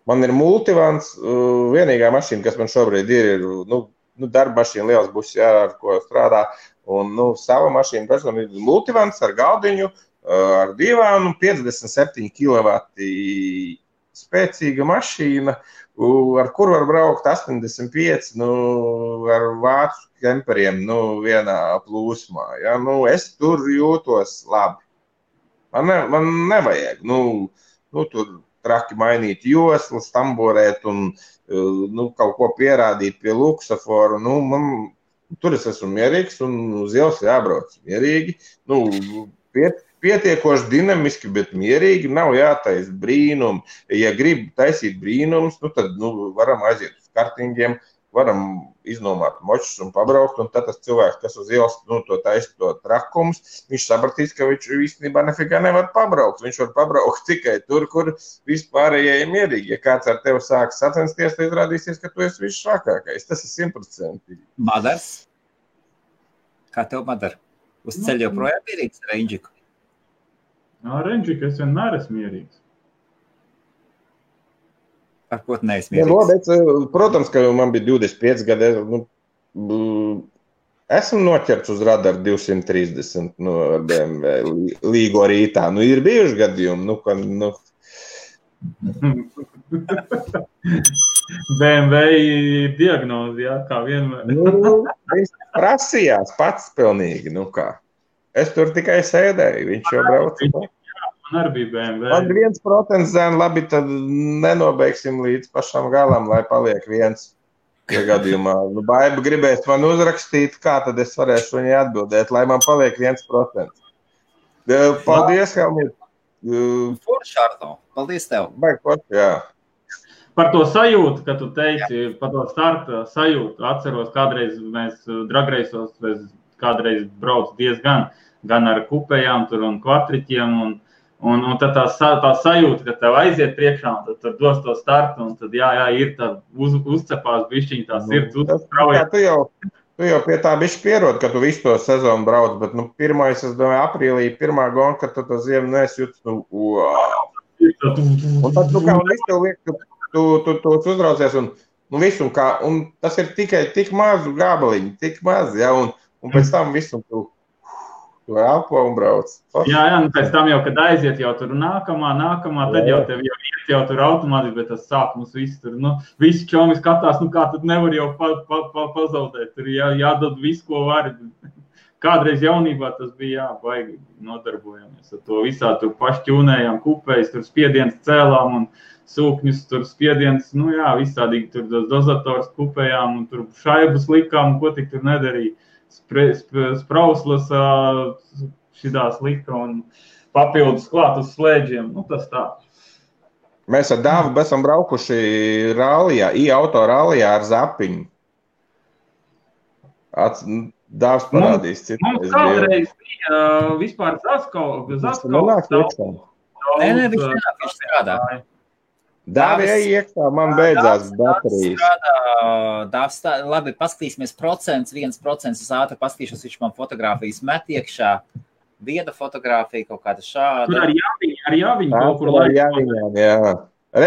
man ir multivans, vienīgā mašīna, kas man šobrīd ir, darba mašīna liels būs, jā, ar ko strādā, Un, sava mašīna personīgi multivans ar galdiņu, ar divānu, 57 kW spēcīga mašīna, ar kuru var braukt 85, ar vācu kemperiem, vienā plūsmā. Ja? Es tur jūtos labi. Man nevajag, tur traki mainīt joslas, tamborēt un kaut ko pierādīt pie luksaforu. Tur es esmu mierīgs un uz ielas jābrauc mierīgi. Pietiekoši dinamiski, bet mierīgi, nav jātais brīnumi. Ja grib taisīt brīnumus, tad varam aiziet uz kartingiem, varam iznomāt močus un pabraukt, un tad tas cilvēks, kas uz ielas to taisa to trakumus, viņš sapratīs, ka viņš īstenībā nefigā nevar pabraukt. Viņš var pabraukt tikai tur, kur vispārējie ir mierīgi. Ja kāds ar tevi sāks sacensties, tad izrādīsies, ka tu esi visšākākais. Tas ir 100%. Madars? Kā tev, Madar? Uz ceļa joprojām mierīgs ar Renģiku? Renģika, es vienmēr esmu mierīgs. Ar ko tu neesi mierīgs? Protams, ka man bija 25 gadi. Esmu noķerts uz radaru 230 ar BMW līgo rītā. Ir bijuši gadījumi, BMW diagnozi, jā, kā vienmēr. Viņš prasījās pats pilnīgi, kā. Es tur tikai sēdēju, viņš jau brauca. Man arī bija BMW. Man 1% zēn, labi, tad nenobeigsim līdz pašam galam, lai paliek viens. Ja gadījumā Baiba gribēs man uzrakstīt, kā tad es varēšu viņai atbildēt, lai man paliek 1%. Paldies, Helmut. Forši, Arno. Paldies tev. Jā. Par to sajūtu, ka tu teici, par to starta sajūtu, atceros, kādreiz mēs dragreisos, kādreiz brauc diezgan, gan ar kupējām tur un kvatriķiem, un tad tā sajūta, ka tev aiziet priekšā, un tad tur dos to startu, un tad ir tā uzcepās bišķiņ, tā sirds uztrauja. Tu jau pie tā bišķi pierod, ka tu visu to sezonu brauc, bet pirmais, es domāju, aprīlī, pirmā gona, kad tu to ziemu nesjūtas, Un tad, kā un viss tev liek, ka tu uzraucies, un visu, un tas ir tikai tik mazu gabaliņu, tik maz, ja, un pēc tam visu tu elpo un brauc. Jā, pēc tam jau, kad aiziet jau tur nākamā, tad jau tev jau tur automātiski, bet tas sākums viss tur, visi čomi skatās, kā tad nevar jau pazaudēt, tur jādod visu, ko var. Kādreiz jaunībā tas bija, baigi nodarbojamies ar to visā, tur pašķūnējām kupējas, tur spiediens cēlām un sūkņus, tur spiediens, visādīgi tur dozators kupējām un tur šaibas likām, ko tik tur nedarīja. Sprauslas šitās lika un papildus klāt uz slēdžiem, tas tā. Mēs ar Dāvu esam braukuši rallijā, auto rallijā ar zapiņu. Dāvs parādīs citu. Mums kādreiz bija vispār Zaskau. Nē, viņš strādā. Dāvi iekšā, man beidzās baterijas. Labi, paskatīsimies 1% uz ātri paskatīšos, viņš man fotogrāfijas met iekšā. Viena fotogrāfija, kaut kāda šāda. Tur ar Jāviņu kaut kur laiku. Jā.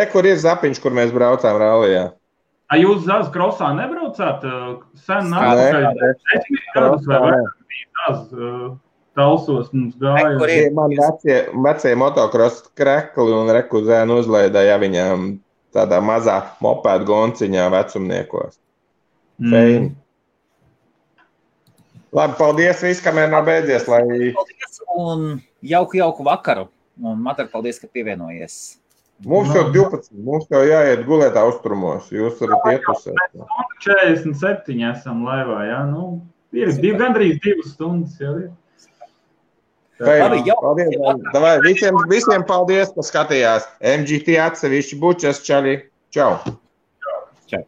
Kur ir zapiņš, kur mēs braucām rallijā? Jūs Zaz krosā nebraucāt? Sen nākamais vai vairāk talsos mums gāja. Man vecie motokros krekli un rekuzēnu uzlaidāja viņām tādā mazā mopēdu gonciņā vecumniekos. Feini. Labi, paldies viss, kamēr nav beidzies. Paldies un jauku vakaru. Un Madar, paldies, ka pievienojies. Mums jau 12, mums jau jāiet gulētā uzturmos, jūs varat iet uzsēt. 47 esam laivā, jā, ir gandrīz 2 stundas jau ir. Paldies, visiem paldies, ka skatījās. MGT atsevišķi bučas, čali. Čau. Čau.